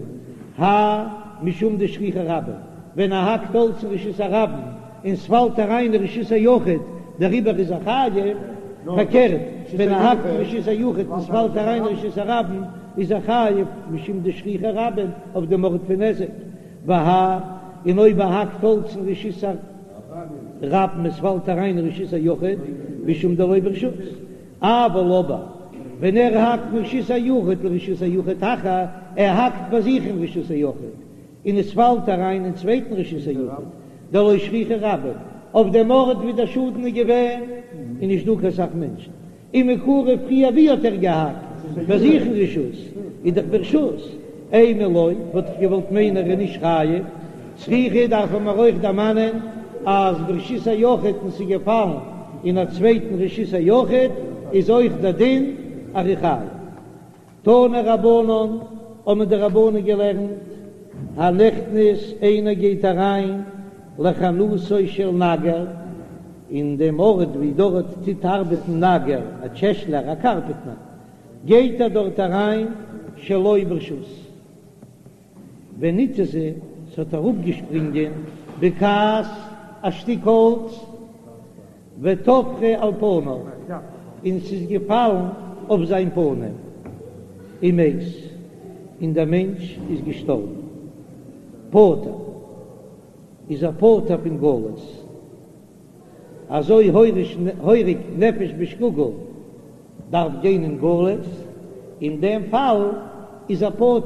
האי משום דשכיחי רבים, ווען ער האקט האלץ אין רשות הרבים און ס'פאלט אריין אין רשות היחיד, דעריבער איז ער חייב, פארקערט ווען ער האקט אין רשות היחיד און ס'פאלט אריין אין רשות הרבים איז ער חייב משום דשכיחי רבים אויף דעם ארט פון נזק, והאי און אויב ער האקט האלץ אין רשות הרבים און ס'פאלט אריין אין רשות היחיד משום דלא ברשות, אבל אבער ווען ער האקט מרשות היחיד לרשות היחיד אחר, ער האקט ביי זיך אין רשות היחיד און עס פאלט אריין אין צווייטן רשות היחיד, דלא שכיחי רבים, אויף דעם ארט ווי דער שאדן איז געווען איז נישט דא קיין סך מענטשן, ומעיקרא פריער ווי האט ער געהאקט? ביי זיך אין רשות, איז דאך ברשות, אימא לא, וואלט איך געוואלט מיינען ער איז נישט חייב, צריכא דארף מען אויך דערמאנען אז ברשות היחיד און ס'איז געפאלן אין א צווייטן רשות היחיד איז אויך דער דין אז ער איז חייב. תנו רבנן, האבן די רבנן געלערנט, הנכנס איינער גייט אריין לחנותו של נגר, אין דעם ארט ווי דארט טוט ארבעטן נגר, א טשעשלער, א קארפעטנער, גייט ער דארט אריין שלא ברשות. ונתזה, ס'האט אראפגעשפרינגען בקעת א שטיק האלץ, וטפחה על פניו, און ס'איז געפאלן אויף זיין פנים, ומת, און דער מענטש איז געשטארבן. פטור, איז ער פטור פון גלות. אזוי הורג נפש בשגגה דארף גיין אין גלות, אין דעם פאל איז ער פטור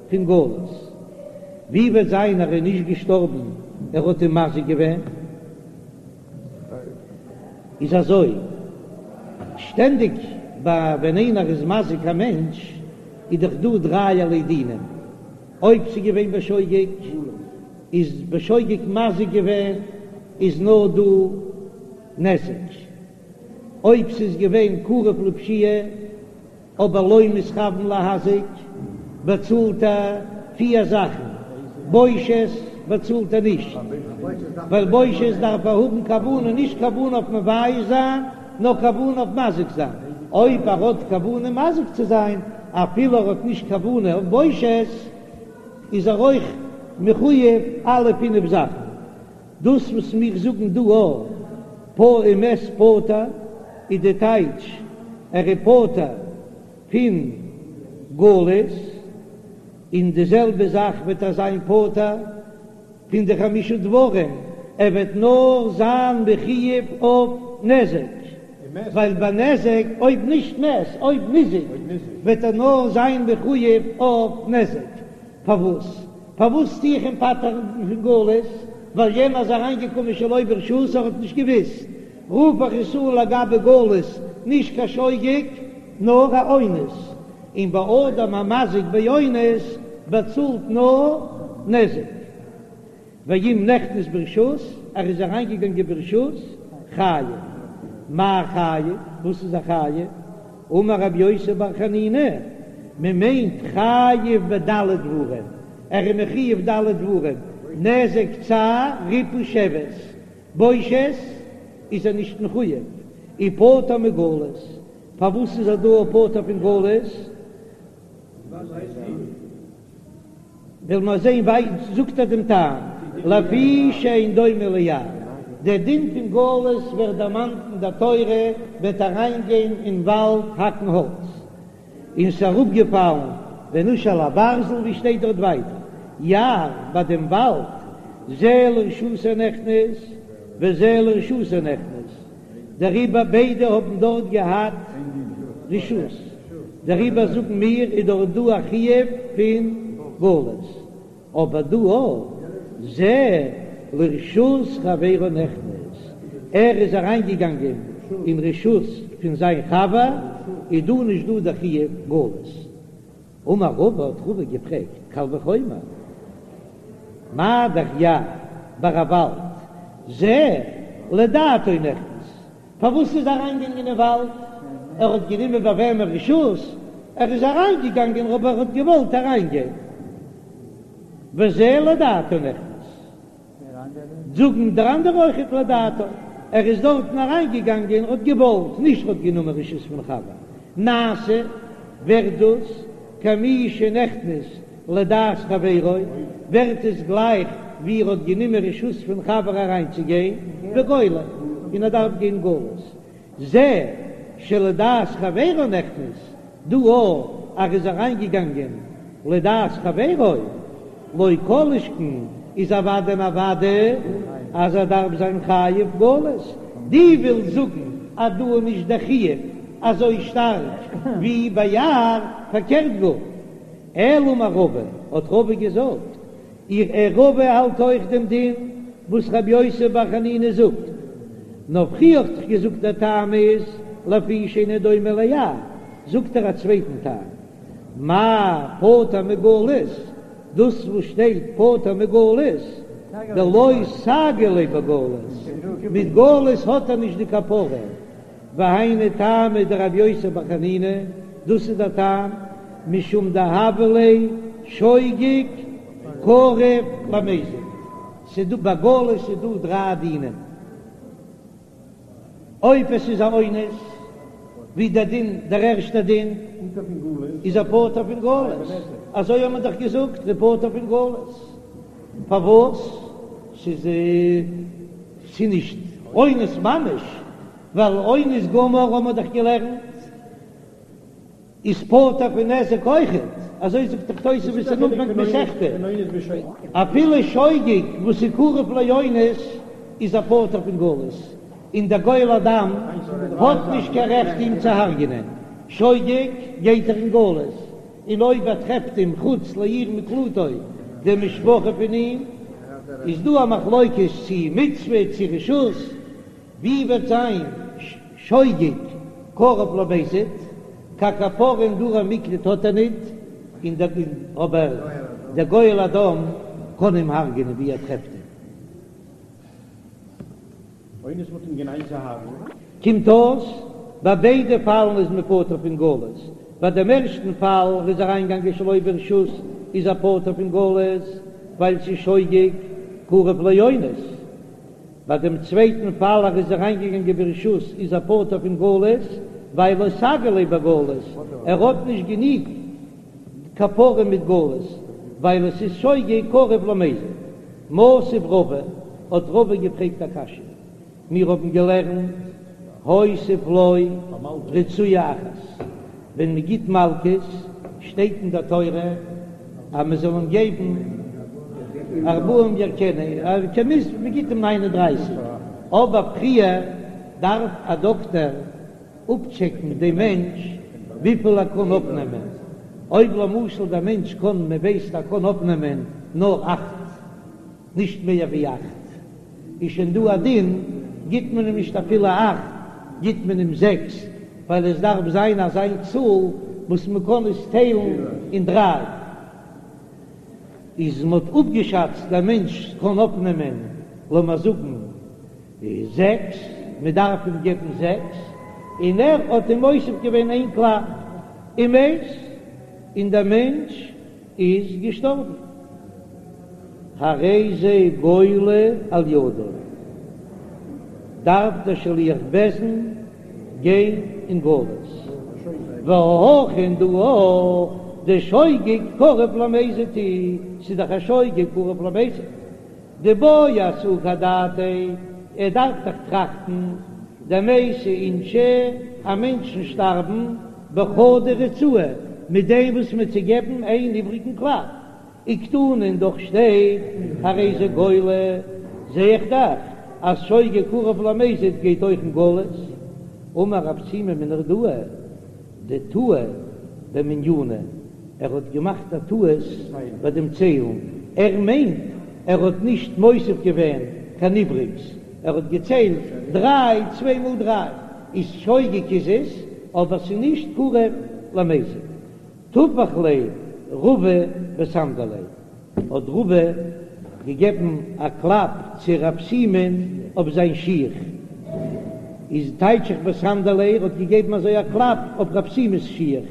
פון גלות. ווי וועט זיין ער איז נישט געשטארבן ער האט אים מזיק געווען? איז אזוי, שטענדיג ביי ווען איינער איז מזיק א מענטש איז דאך דא דרייערליי דינים, אויב ס'איז געווען בשוגג איז בשוגג מזיק געווען איז נאר דא נזק, אויב ס'איז געווען קרוב לפשיעה אבער לא מתכוון להזיק באצאלט ער פיר זאכן, בושת באצאלט ער נישט, ווייל בושת דארף ער האבן כוונה, נישט כוונה אויף מבייש זיין, נאר כוונה אויף מזיק זיין, אויב ער האט כוונה מזיק צו זיין, אפילו ער האט נישט כוונה אויף בושת, איז ער אויך מחויב אלע פינף זאכן. דאס וואס מיר זאגן דא א פ ומת פטור איז די טייטש ער איז פטור פון גלות, און די זעלבע זאך וועט ער זיין פטור פון די חמשה דברים, ער וועט נאר זיין מחויב אויף נזק, ווייל ביי נזק אויב נישט מת אויב ניזק וועט ער נאר זיין מחויב אויף נזק, פארוואס? פארוואס טו איך אים פטר'ן פון גלות? ווייל יענער איז אריינגעקומען שלא ברשות, ער האט נישט געוואוסט. רוף איך עס אן לגבי גלות, נישט קיין שוגג, נאר א אונס. און ביי אדם המזיק באונס באצאלט נאר נזק. ואם נכנס ברשות, ער איז אריינגעגאנגען ברשות, חייב. מאי חייב? וואס איז ער חייב? אמר רבי יוסי בר חנינא, מען מיינט חייב בד' דברים, ער איז מחויב ד' דברים, נזק צער ריפוי שבת, בושת איז ער נישט מחויב, ופטור מגלות, פארוואס איז ער דא פטור פון גלות? וועלן מיר זען וויי זאגט ער דעם טעם, לפי שאין דומה ליער, דער דין פון גלות ווערט דערמאנט אין דער תורה, וועט אריינגיין אין וואלד האקן האלץ. און ס'איז אראפגעפאלן ונשל הברזל ווי שטייט דארט ווייטער יער ביי דעם וואלד זה לרשותו נכנס וזה לרשותו נכנס דעריבער ביידע האבן דארט געהאט רשות דעריבער זאגן מיר איז דארט דא א חיוב פון גלות. אבער דא אויך, זה לרשות חברו נכנס, ער איז אריינגעגאנגען אין רשות פון זיין חבר, איז דא נישט דא דער חיוב גלות. אמר רבא, האט רבא געפרעגט, קל וחומר, מה דאך יער ביי א וואלד, זה לדעתו נכנס, פארוואס איז אריינגעגאנגען אין וואלד? ער האט גענומען ביי וועמען רשות? ער איז אריינגעגאנגען אבער ער האט געוואלט אריינגיין. וזה לדעתו נכנס. זאגן דער אנדערע אויכעט לדעתו. ער איז דארטן אריינגעגאנגען ער האט געוואלט, נישט ער האט גענומען רשות פון חבר. נעשה, ווערט דאס כמי שנכנס לדעת חברו, ווערט עס גלייך ווי ער האט גענומען רשות פון חבר אריינצוגיין, וגולה, און ער דארף גיין גלות. זה שלדעת חברו נכנס, דא אויך ער איז אריינגעגאנגען לדעת חברו, לא כל שכן איז אוודאי און אוודאי אז ער דארף זיין חייב גלות. דו ווילסט זאגן אז דא איז נישט דער חיוב אזוי שטארק ווי ביי יער, פארקערט גאר. אלא אמר רבא, האט רבא געזאגט, איך ער רבא האלט אויך דעם דין וואס רבי יוסי בר חנינא זאגט, נאר פריער האט איך געזאגט דער טעם איז לפי שאינו דומה ליער, זאגט ער א צווייטן טעם, מאי פטור מגלות, דאס וואס שטייט פטור מגלות, דלא סגי ליה בגלות, מיט גלות האט ער נישט די כפרה, והיינו טעמא דרבי יוסי בר חנינא, דאס איז דער טעם, משום דהוה ליה שוגג קרוב למזיד, ס'איז דא ביי גלות איז דא דריי דינים, אויב עס איז א אונס, ווי דער דין, דער ערשטער דין, איז ער פטור פון גלות, אזוי האט מען דאך געזאגט, ער פטור פון גלות, פארוואס? ס'איז ס'איז נישט אונס ממש, ווייל אונס גמור האבן מיר דאך געלערנט איז פטור פון נזק אויכעט, אזוי זאגט דאך תוספות אין אנפאנג מסכתא, אפילו שוגג וואס איז קרוב לאונס איז ער פטור פון גלות, און דער גואל הדם האט נישט קיין רעכט אים צו הרג'נען, שוגג גייט ער אין גלות, און אויב ער טרעפט אים חוץ לעיר מקלטו די משפחה פון אים, איז דא א מחלוקת צו מצוה צו רשות, ווי וועט זיין שוגג קרוב למזיד, קיין כפרה אין די ערי מקלט האט ער ניט, און דער אבער דער גואל הדם קען אים הרג'נען ווי ער טרעפט אים. אונס מ'האט אים גענייט צו הרג'נען. קומט אויס, ביי ביידע פאלן איז מען פטור פון גלות, ביי דעם ערשטן פאל ער איז אריינגעגאנגען שלא ברשות איז ער פטור פון גלות ווייל ס'איז שוגג קרוב לאונס, ביי דעם צווייטן פאל ער איז אריינגעגאנגען ברשות איז ער פטור פון גלות ווייל לא סגי ליה בגלות, ער האט נישט גענוג כפרה מיט גלות ווייל עס איז שוגג קרוב למזיד. מתיב רבא, האט רבא געפרעגט א קשיא, מיר האבן געלערנט הוסיף לו רצועה אחת, ווען מען גיט מלקות שטייט אין דער תורה אז מען זאל אים געבן ארבעים יכנו, מען גיט אים ניין און דרייסיג, אבער פריער דארף א דאקטער אפטשעקן דעם מענטש וויפיל ער קען אויפנעמען, אויב למשל דער מענטש קען, מען ווייסט ער קען אויפנעמען נאר אכט, נישט מער ווי אכט, איז שוין דא א דין, גיט מען אים נישט אפילו אכט, גיט מען אים זעקס, ווייל עס דארף זיין אזא צאל וואס מען קען עס טיילן אין דריי. איז מען האט אפגעשאצט דער מענטש קען אויפנעמען לאמיר זאגן זעקס, מען דארף אים געבן זעקס, און ער האט אים מוסיף געווען איין קלאפ, ומת, און דער מענטש איז געשטארבן, הרי זה גולה על ידו, דארף דער שליח בית דין גיין אין גלות, והכא און דא דשוגג קרוב למזיד הוא, ס'איז דאך א שוגג קרוב למזיד. דבעי אסוקי אדעתיה, ער דארף דאך טראכטן, דמייתי אינשי, אז מענטשן שטארבן. בחדא ריצאה, מיט דעם וואס מ'וועט צו געבן איין איבריגן קלאפ. וקתני און דאך שטייט הרי זה גולה, זע איך דאך אז שוגג קרוב למזיד גייט אויך אין גלות. אמר רב שימי מנהרדעא דטעה במנינא, ער האט געמאכט א טעות ביי דעם ציילן, ער מיינט ער האט נישט מוסיף געווען קיין איבריגס, ער האט געציילט דריי, צוויי מאל דריי איז שוגג איז עס, אבער ס'איז נישט קרוב למזיד. טפח ליה רבא בסנדליה, האט רבא געגעבן א קלאפ צו רב שימי'ן אויף זיין שיך, איז טייטש איך בסנדליה, ער האט געגעבן אזוי א קלאפ אויף רב שימי'ס שיך,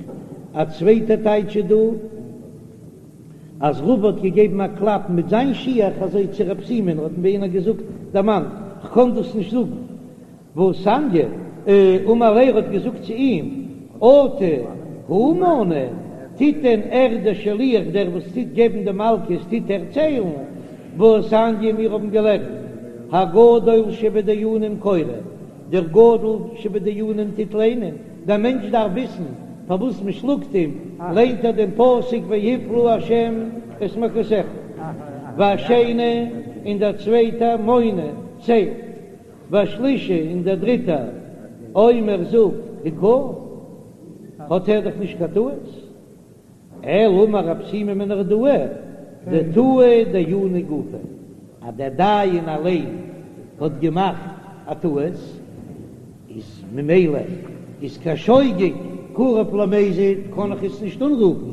א צווייטע טייטש איז דא אז רבא האט געגעבן א קלאפ מיט זיין שיך אזוי צו רב שימי'ן, האט אים יענער געזאגט דערמאנט, כ'קען דאס נישט זאגן. והתניא, אמר ליה האט געזאגט צו אים, אטו הוא מני, טוט דען ער דער שליח דער וואס טוט געבן די מלקות טוט ער ציילן, והתניא מיר האבן געלערנט, הגדול שבדיינים קורא, דער גדול שבדיינים טוט ליינען, דער מענטש דארף וויסן פארוואס מען שלאגט אים, ליינט ער דעם פסוק והפלה ה' את מכתך, והשני און דער צווייטער מונה, ציילט. והשלישי און דער דריטער אומר זאגט הכהו, האט ער דאך נישט קיין טעות, אלא אמר רב שימי מנהרדעא דטעה דיינא גופיה, אז דער דיין אליין האט געמאכט א טעות, איז ממילא איז קיין שוגג קרוב למזיד קען איך עס נישט אנרופן,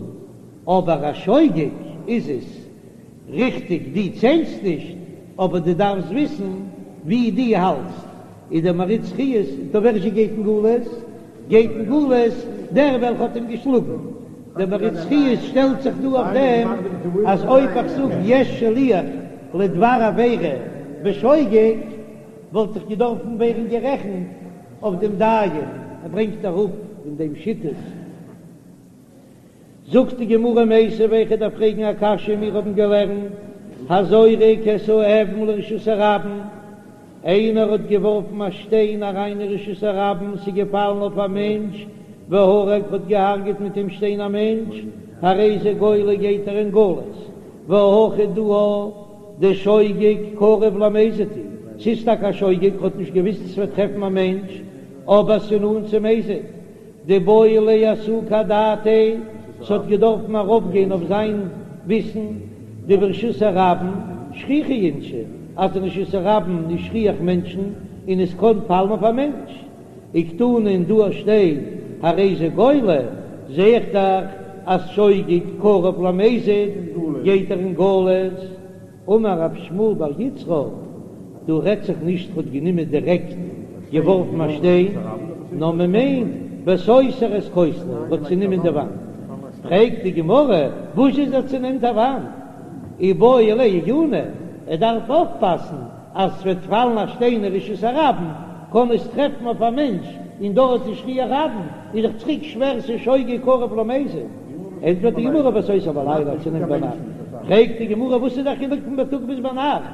אבער א שוגג איז עס. ריכטיג דו ציילסט נישט, אבער דו דארפסט וויסן ווי דו האלטסט, איז דער מהרי"ץ חיות טא ווער זשע גייט אין גלות? גייט אין גלות דער וועלכע האט אים געשלאגן. דער מהרי"ץ חיות שטעלט זיך דא אויף דעם אז אויב איך זאג יש שליח לדבר עבירה בשוגג וואלט איך געדארפן ווערן גערעכנט אויף דעם דיין, ער ברענגט אראפ אין דעם שיטות. זאגט די גמרא מיתיבי איך דארף פרעגן א קשיא מיר האבן געלערנט הזורק את האבן לרשות הרבים איינער האט געווארפן א שטיין אריין אין רשות הרבים ס'איז געפאלן אויף א מענטש והרג האט געהארגעט מיט דעם שטיין א מענטש הרי זה גולה גייט ער אין גלות והכא דא דשוגג קרוב למזיד הוא ס'איז טאקע א שוגג האט נישט געוויסט ס'וועט טרעפן א מענטש אבער ס'איז נאנט צו מזיד דאיבעי ליה אסוקי אדעתיה, ס'האט געדארפן ארויפגיין אויף זיין וויסן דברשות הרבים שכיחי אינשי, אז אין רשות הרבים איז שכיח מענטשן און עס קען פאלן אויף א מענטש. וקתני און דא שטייט הרי זה גולה, זע איך דאך אז שוגג קרוב למזיד גייט ער אין גלות. אמר רב שמואל בר יצחק, דא רעדט זיך נישט ר'האט גענומען דירעקט געווארפן א שטיין, נאר מ'מיינט בסותר את כותלו, ר'האט צונומען די וואנט. פרעגט די גמרא, וואס איז ער צונעמט א וואנט? איבעי ליה עיוני, ער דארף אויפפאסן אז ס'וועט פאלן א שטיין אין רשות הרבים, קען עס טרעפן אויף א מענטש, און דארט איז שכיח רבים, איז דאך צוריק שווער ס'איז שוגג קרוב למזיד. ענטפערט די גמרא בסותר בלילה צונעמט ביינאכט, פרעגט די גמרא וואס איז דער חילוק פון בייטאג ביז ביינאכט,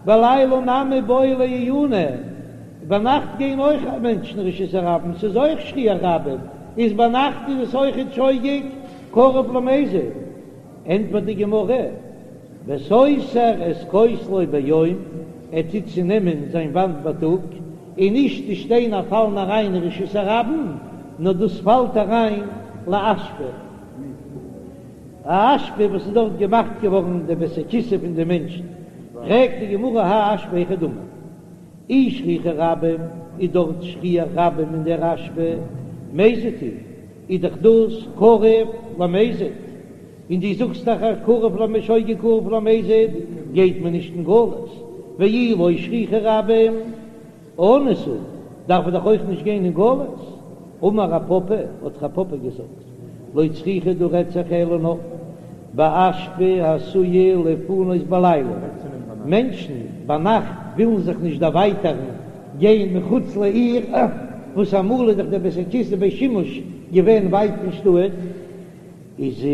בלילה נמי בעי ליה עיוני, ביינאכט גייען אויך מענטשן רשות הרבים, ס'איז אויך שכיח רבים, איז ביינאכט איז עס אויכעט שוגג קרוב למזיד. ענטפערט די גמרא, בסותר את כותלו ביום, ער טוט צונעמען זיין וואנט בייטאג, און נישט די שטיינער פאלן אריין אין רשות הרבים, נאר דאס פאלט אריין לאשפה, א אשפה וואס איז דארט געמאכט געווארן די בית הכסא פון די מענטשן, פרעגט די גמרא האי אשפה היכי דמי, אי שכיחי רבים, איז דארט שכיח רבים אין דער אשפה, מזיד הוא, איז דאך דאס קרוב למזיד, און דו זאגסט דאך אז קרוב למ שוגג קרוב למזיד גייט מען נישט אין גלות, ואי לא שכיחי רבים אנוס הוא, דארף מען דאך אויך נישט גיין אין גלות. אמר רב פפא, האט רב פפא געזאגט, לא צריכא דא רעדט זיך אלא נאר באשפה העשויה לפנות בלילה, מענטשן ביינאכט ווילן זיך נישט דערווייטערן גיין מחוץ לעיר, וואס אמאל איז דאך דער בית הכסא בית שימוש געווען ווייט פון שטאט, איז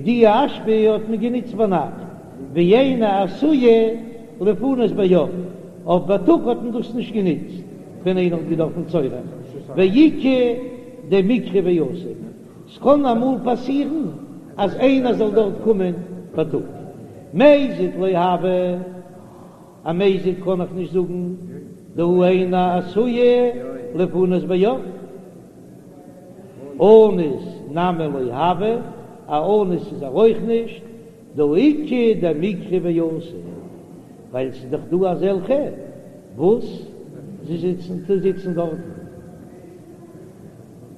די אשפה האט מען גענוצט ביינאכט, ואינה עשויה לפנות ביום, אויף בייטאג האט מען דאס נישט גענוצט ווען איינער האט געדארפן צורך, ואיכא דמקרי ואתי. ס'קען אמאל פאסירן אז איינער זאל דארט קומען בייטאג. מזיד לא הוי, א מזיד קען איך נישט זאגן, דהא אינה עשויה לפנות ביום. אנוס נמי לא הוי, א אנוס איז ער אויך נישט, דהא איכא דמיקרי ואתי, ווייל ס'איז דאך דא אזעלכע וואס זיי זיצן זיצן דארטן,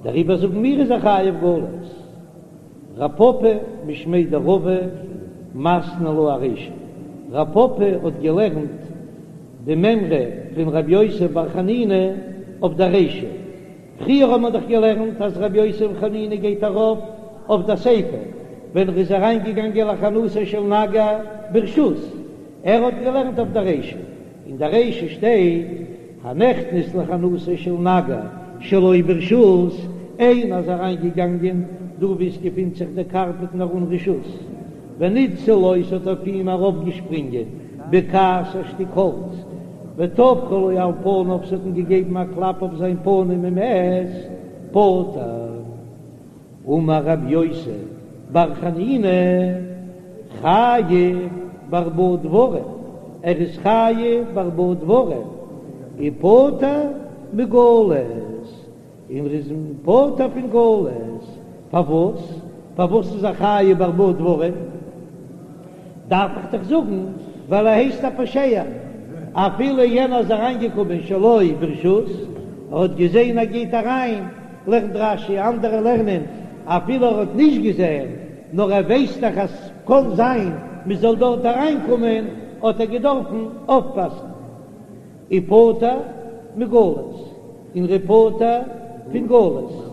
דעריבער זאגן מיר איז ער חייב גלות. רב פפא משמיה דרבא מתני לה ארישא, רב פפא האט געלערנט די מימרא פון רבי יוסי בר חנינא אויף דער רישא, פריער האט מען דאך געלערנט אז רבי יוסי בר חנינא גייט ארויף אויף דער סיפא ווען ער איז אריינגעגאנגען לחנותו של נגר ברשות, ער האט געלערנט אויף דער רישא, אין דער רישא שטייט הנכנס לחנותו של נגר שלא ברשות, איינער איז אריינגעגאנגען דא וואו עס געפינט זיך דער קארפעט נאר אן רשות, וניתזה לו ס'האט אויף אים ארויפגעשפרינגען בקעת א שטיק האלץ, וטפחה לו על פניו ס'האט אים געגעבן א קלאפ אויף זיין פנים ומת, פטור. אמר רבי יוסי בר חנינא, חייב בארבעה דברים, ער איז חייב בארבעה דברים, ופטור מגלות. און ער איז פטור פון גלות. פארוואס? פארוואס איז ער חייב בארבעה דברים? דארף איך דאך זאגן ווייל ער הייסט א פושע, אפילו יענער איז אריינגעקומען שלא ברשות, ער האט געזען ער גייט אריין, לערנט רש"י, אנדערע לערנען אפילו ער האט נישט געזען, נאר ער ווייסט דאך אז ס'קען זיין מ'זאל דארט אריינקומען, האט ער געדארפן אויפפאסן. ופטור מגלות, און ער איז פטור פון גלות.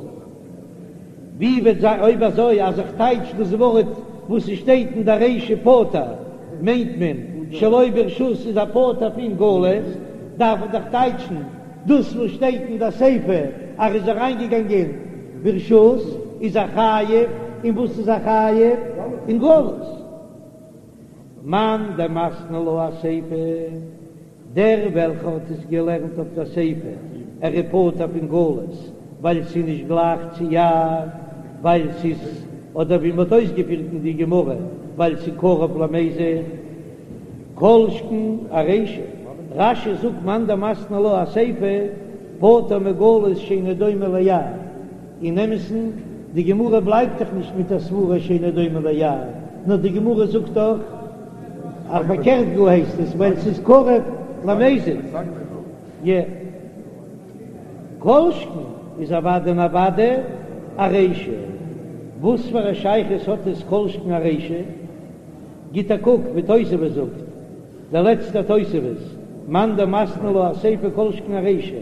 ווי וועט זיין אויב אזוי אז איך טייטש דאס ווארט וואס ס'שטייט אין דער רישא פטור מיינט מען שלא ברשות איז ער פטור פון גלות, דארף איך דאך טייטשן דאס וואס שטייט אין דער סיפא אז ער איז אריינגעגאנגען ברשות איז ער חייב, און וואס איז ער חייב? אין גלות. מאן דמתני לה אסיפא, דער וועלכער האט עס געלערנט אויף דער סיפא, ער איז פטור פון גלות, ווייל ס'איז נישט גלייך צו יער, ווייל ס'איז, אדער ווי מ'האט אויסגעפירט אין די גמרא, ווייל ס'איז קרוב למזיד, כל שכן ארישא. רש"י זאגט מאן דמתני לה אסיפא, פטור מגלות שאינו דומה ליער. אין אמת'ן, די גמרא בלייבט דאך נישט מיט א סברה שאינו דומה ליער, נאר די גמרא זאגט דאך אז פארקערט גאר הייסט עס, ווייל ס'איז קרוב למזיד. י. כל שכן איז אוודאי און אוודאי ארישא. וואס פאר א שייכות האט עס כל שכן ארישא? גיט א קוק ווי תוספות זאגט. דער לעצטער תוספות, מאן דמתני לה אסיפא כל שכן ארישא,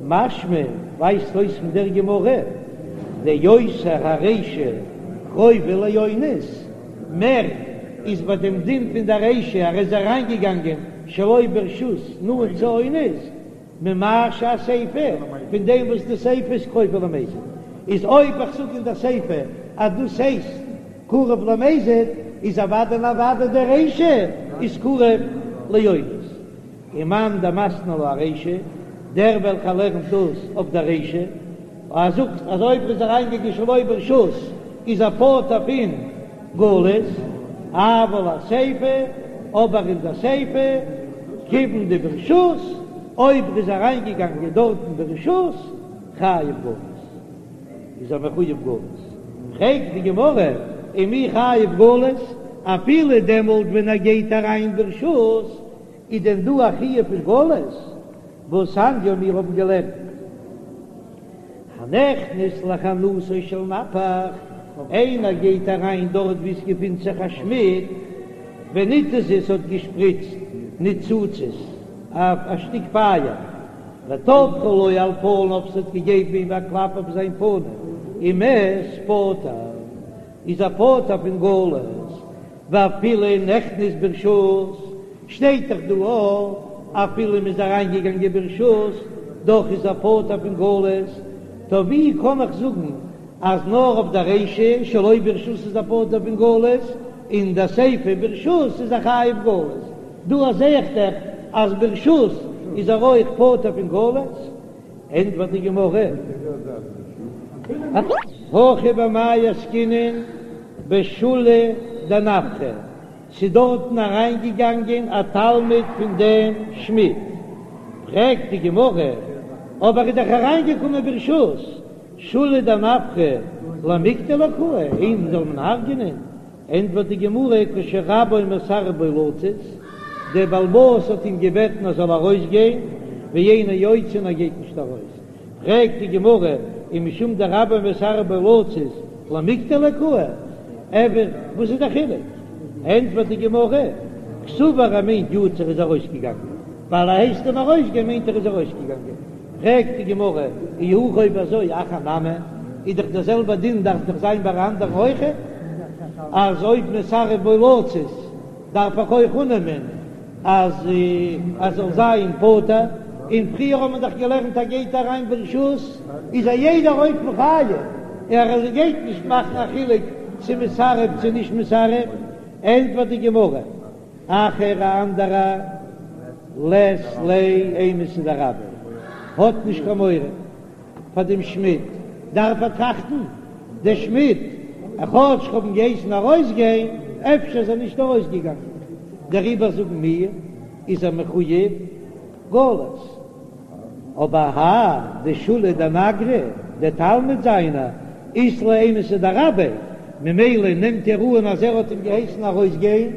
משמע ווייזט אויס פון דער גמרא, דיותר הרישא קרובה לאונס, מער איז ביי דעם דין פון דער רישא ער איז אריינגעגאנגען שלא ברשות נאנט צו אונס, ממה שהסיפא, פון דעם וואס די סיפא איז קרובה למזיד, איז אויב איך זאג אין דער סיפא אז דאס הייסט קרוב למזיד, איז אוודאי און אוודאי די רישא איז קרוב לאונס. ומאן דמתני לה ארישא, דער וועלכער לערנט דאס אויף דער רישא, ער זאגט אז אויב ער איז אריינגעגאנגען שלא ברשות איז ער פטור פון גלות, אבל אסיפא, אבער אין דער סיפא, כיוון דברשות, אויב ער איז אריינגעגאנגען דארטן ברשות, חייב גלות, איז ער מחויב גלות. פרעגט די גמרא, ומי חייב גלות, אפילו דעמאלט ווען ער גייט אריין ברשות, איז דען דא א חיוב פון גלות? והתניא מיר האבן געלערנט הנכנס לחנותו של נפח, איינער גייט אריין דארט וואו עס געפינט זיך א שמיד, וניתזו ס'האט געשפריצט ניצוצות א שטיק פייער, וטפחה לו על פניו ס'האט געגעבן אים א קלאפ אויף זיין פנים, ומת פטור איז ער פטור פון גלות, ואפילו נכנס ברשות, שטייט דאך דא אויך, אפילו מ'איז אריינגעגאנגען ברשות, דאך איז ער פטור פון גלות, טא ווי קען איך זאגן אז נאר אויף די רישא שלא ברשות איז ער פטור פון גלות, און די סיפא ברשות איז ער חייב גלות, דא זעה איך דאך אז ברשות איז ער אויך פטור פון גלות, ענטפערט די גמרא. הכא במאי עסקינן בשולא דנפחא, ס'איז דארטן אריינגעגאנגען א תלמיד פון דעם שמיד. פרעגט די גמרא, אבער איז דאך אריינגעקומען ברשות, שולא דנפחא למיקטליה קאי, אים זאל מען הרג'נען? ענטפערט די גמרא, כשרבו מסרב בו לצאת, דער בעל הבית האט אים געבעטן ער זאל ארויסגיין, ואינו יוצא און ער גייט נישט ארויס. פרעגט די גמרא, ומשום דרבו מסרב בו לצאת למיקטליה קאי, אבער וואס איז דער חילוק? ענטפערט די גמרא, קסבר ער מיינט יצא ער איז ארויסגעגאנגען, ווייל ער הייסט אים ארויסגיין מיינט ער איז ארויסגעגאנגען. פרעגט די גמרא, אי הכי אויב אזוי אחר נמי, איז דאך דער זעלבער דין דארף דאך זיין ביי אנדערן אויכעט, אז אויב מסרב בו לצאת דארף איך אויך אננעמען אז ער זאל זיין פטור, און פריער האט מען דאך געלערנט אז גייט אריין ברשות איז א יעדער אופן חייב, ער גייט נישט מאכן א חילוק צו מסרב צו נישט מסרב, ענטפערט די גמרא, אחר א אנדערע לית ליה אימתא דרביה האט נישט קיין מורא פאר דעם שמיד, דארף ער טראכטן דער שמיד כאטש כ'האב אים געהייסן ארויסגיין אפשר איז ער נישט ארויסגעגאנגען דעריבער זאגן מיר איז ער מחויב גלות. אבער האי דשולא דנגרא, דער תלמיד זיינער, אית ליה אימתא דרביה, ממילא נעמט ער אן אז ער האט אים געהייסן ארויסגיין,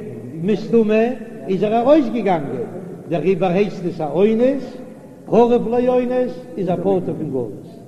מסתמא איז ער ארויסגעגאנגען, דעריבער הייסט עס א אונס, קרוב לאונס איז ער פטור פון גלות.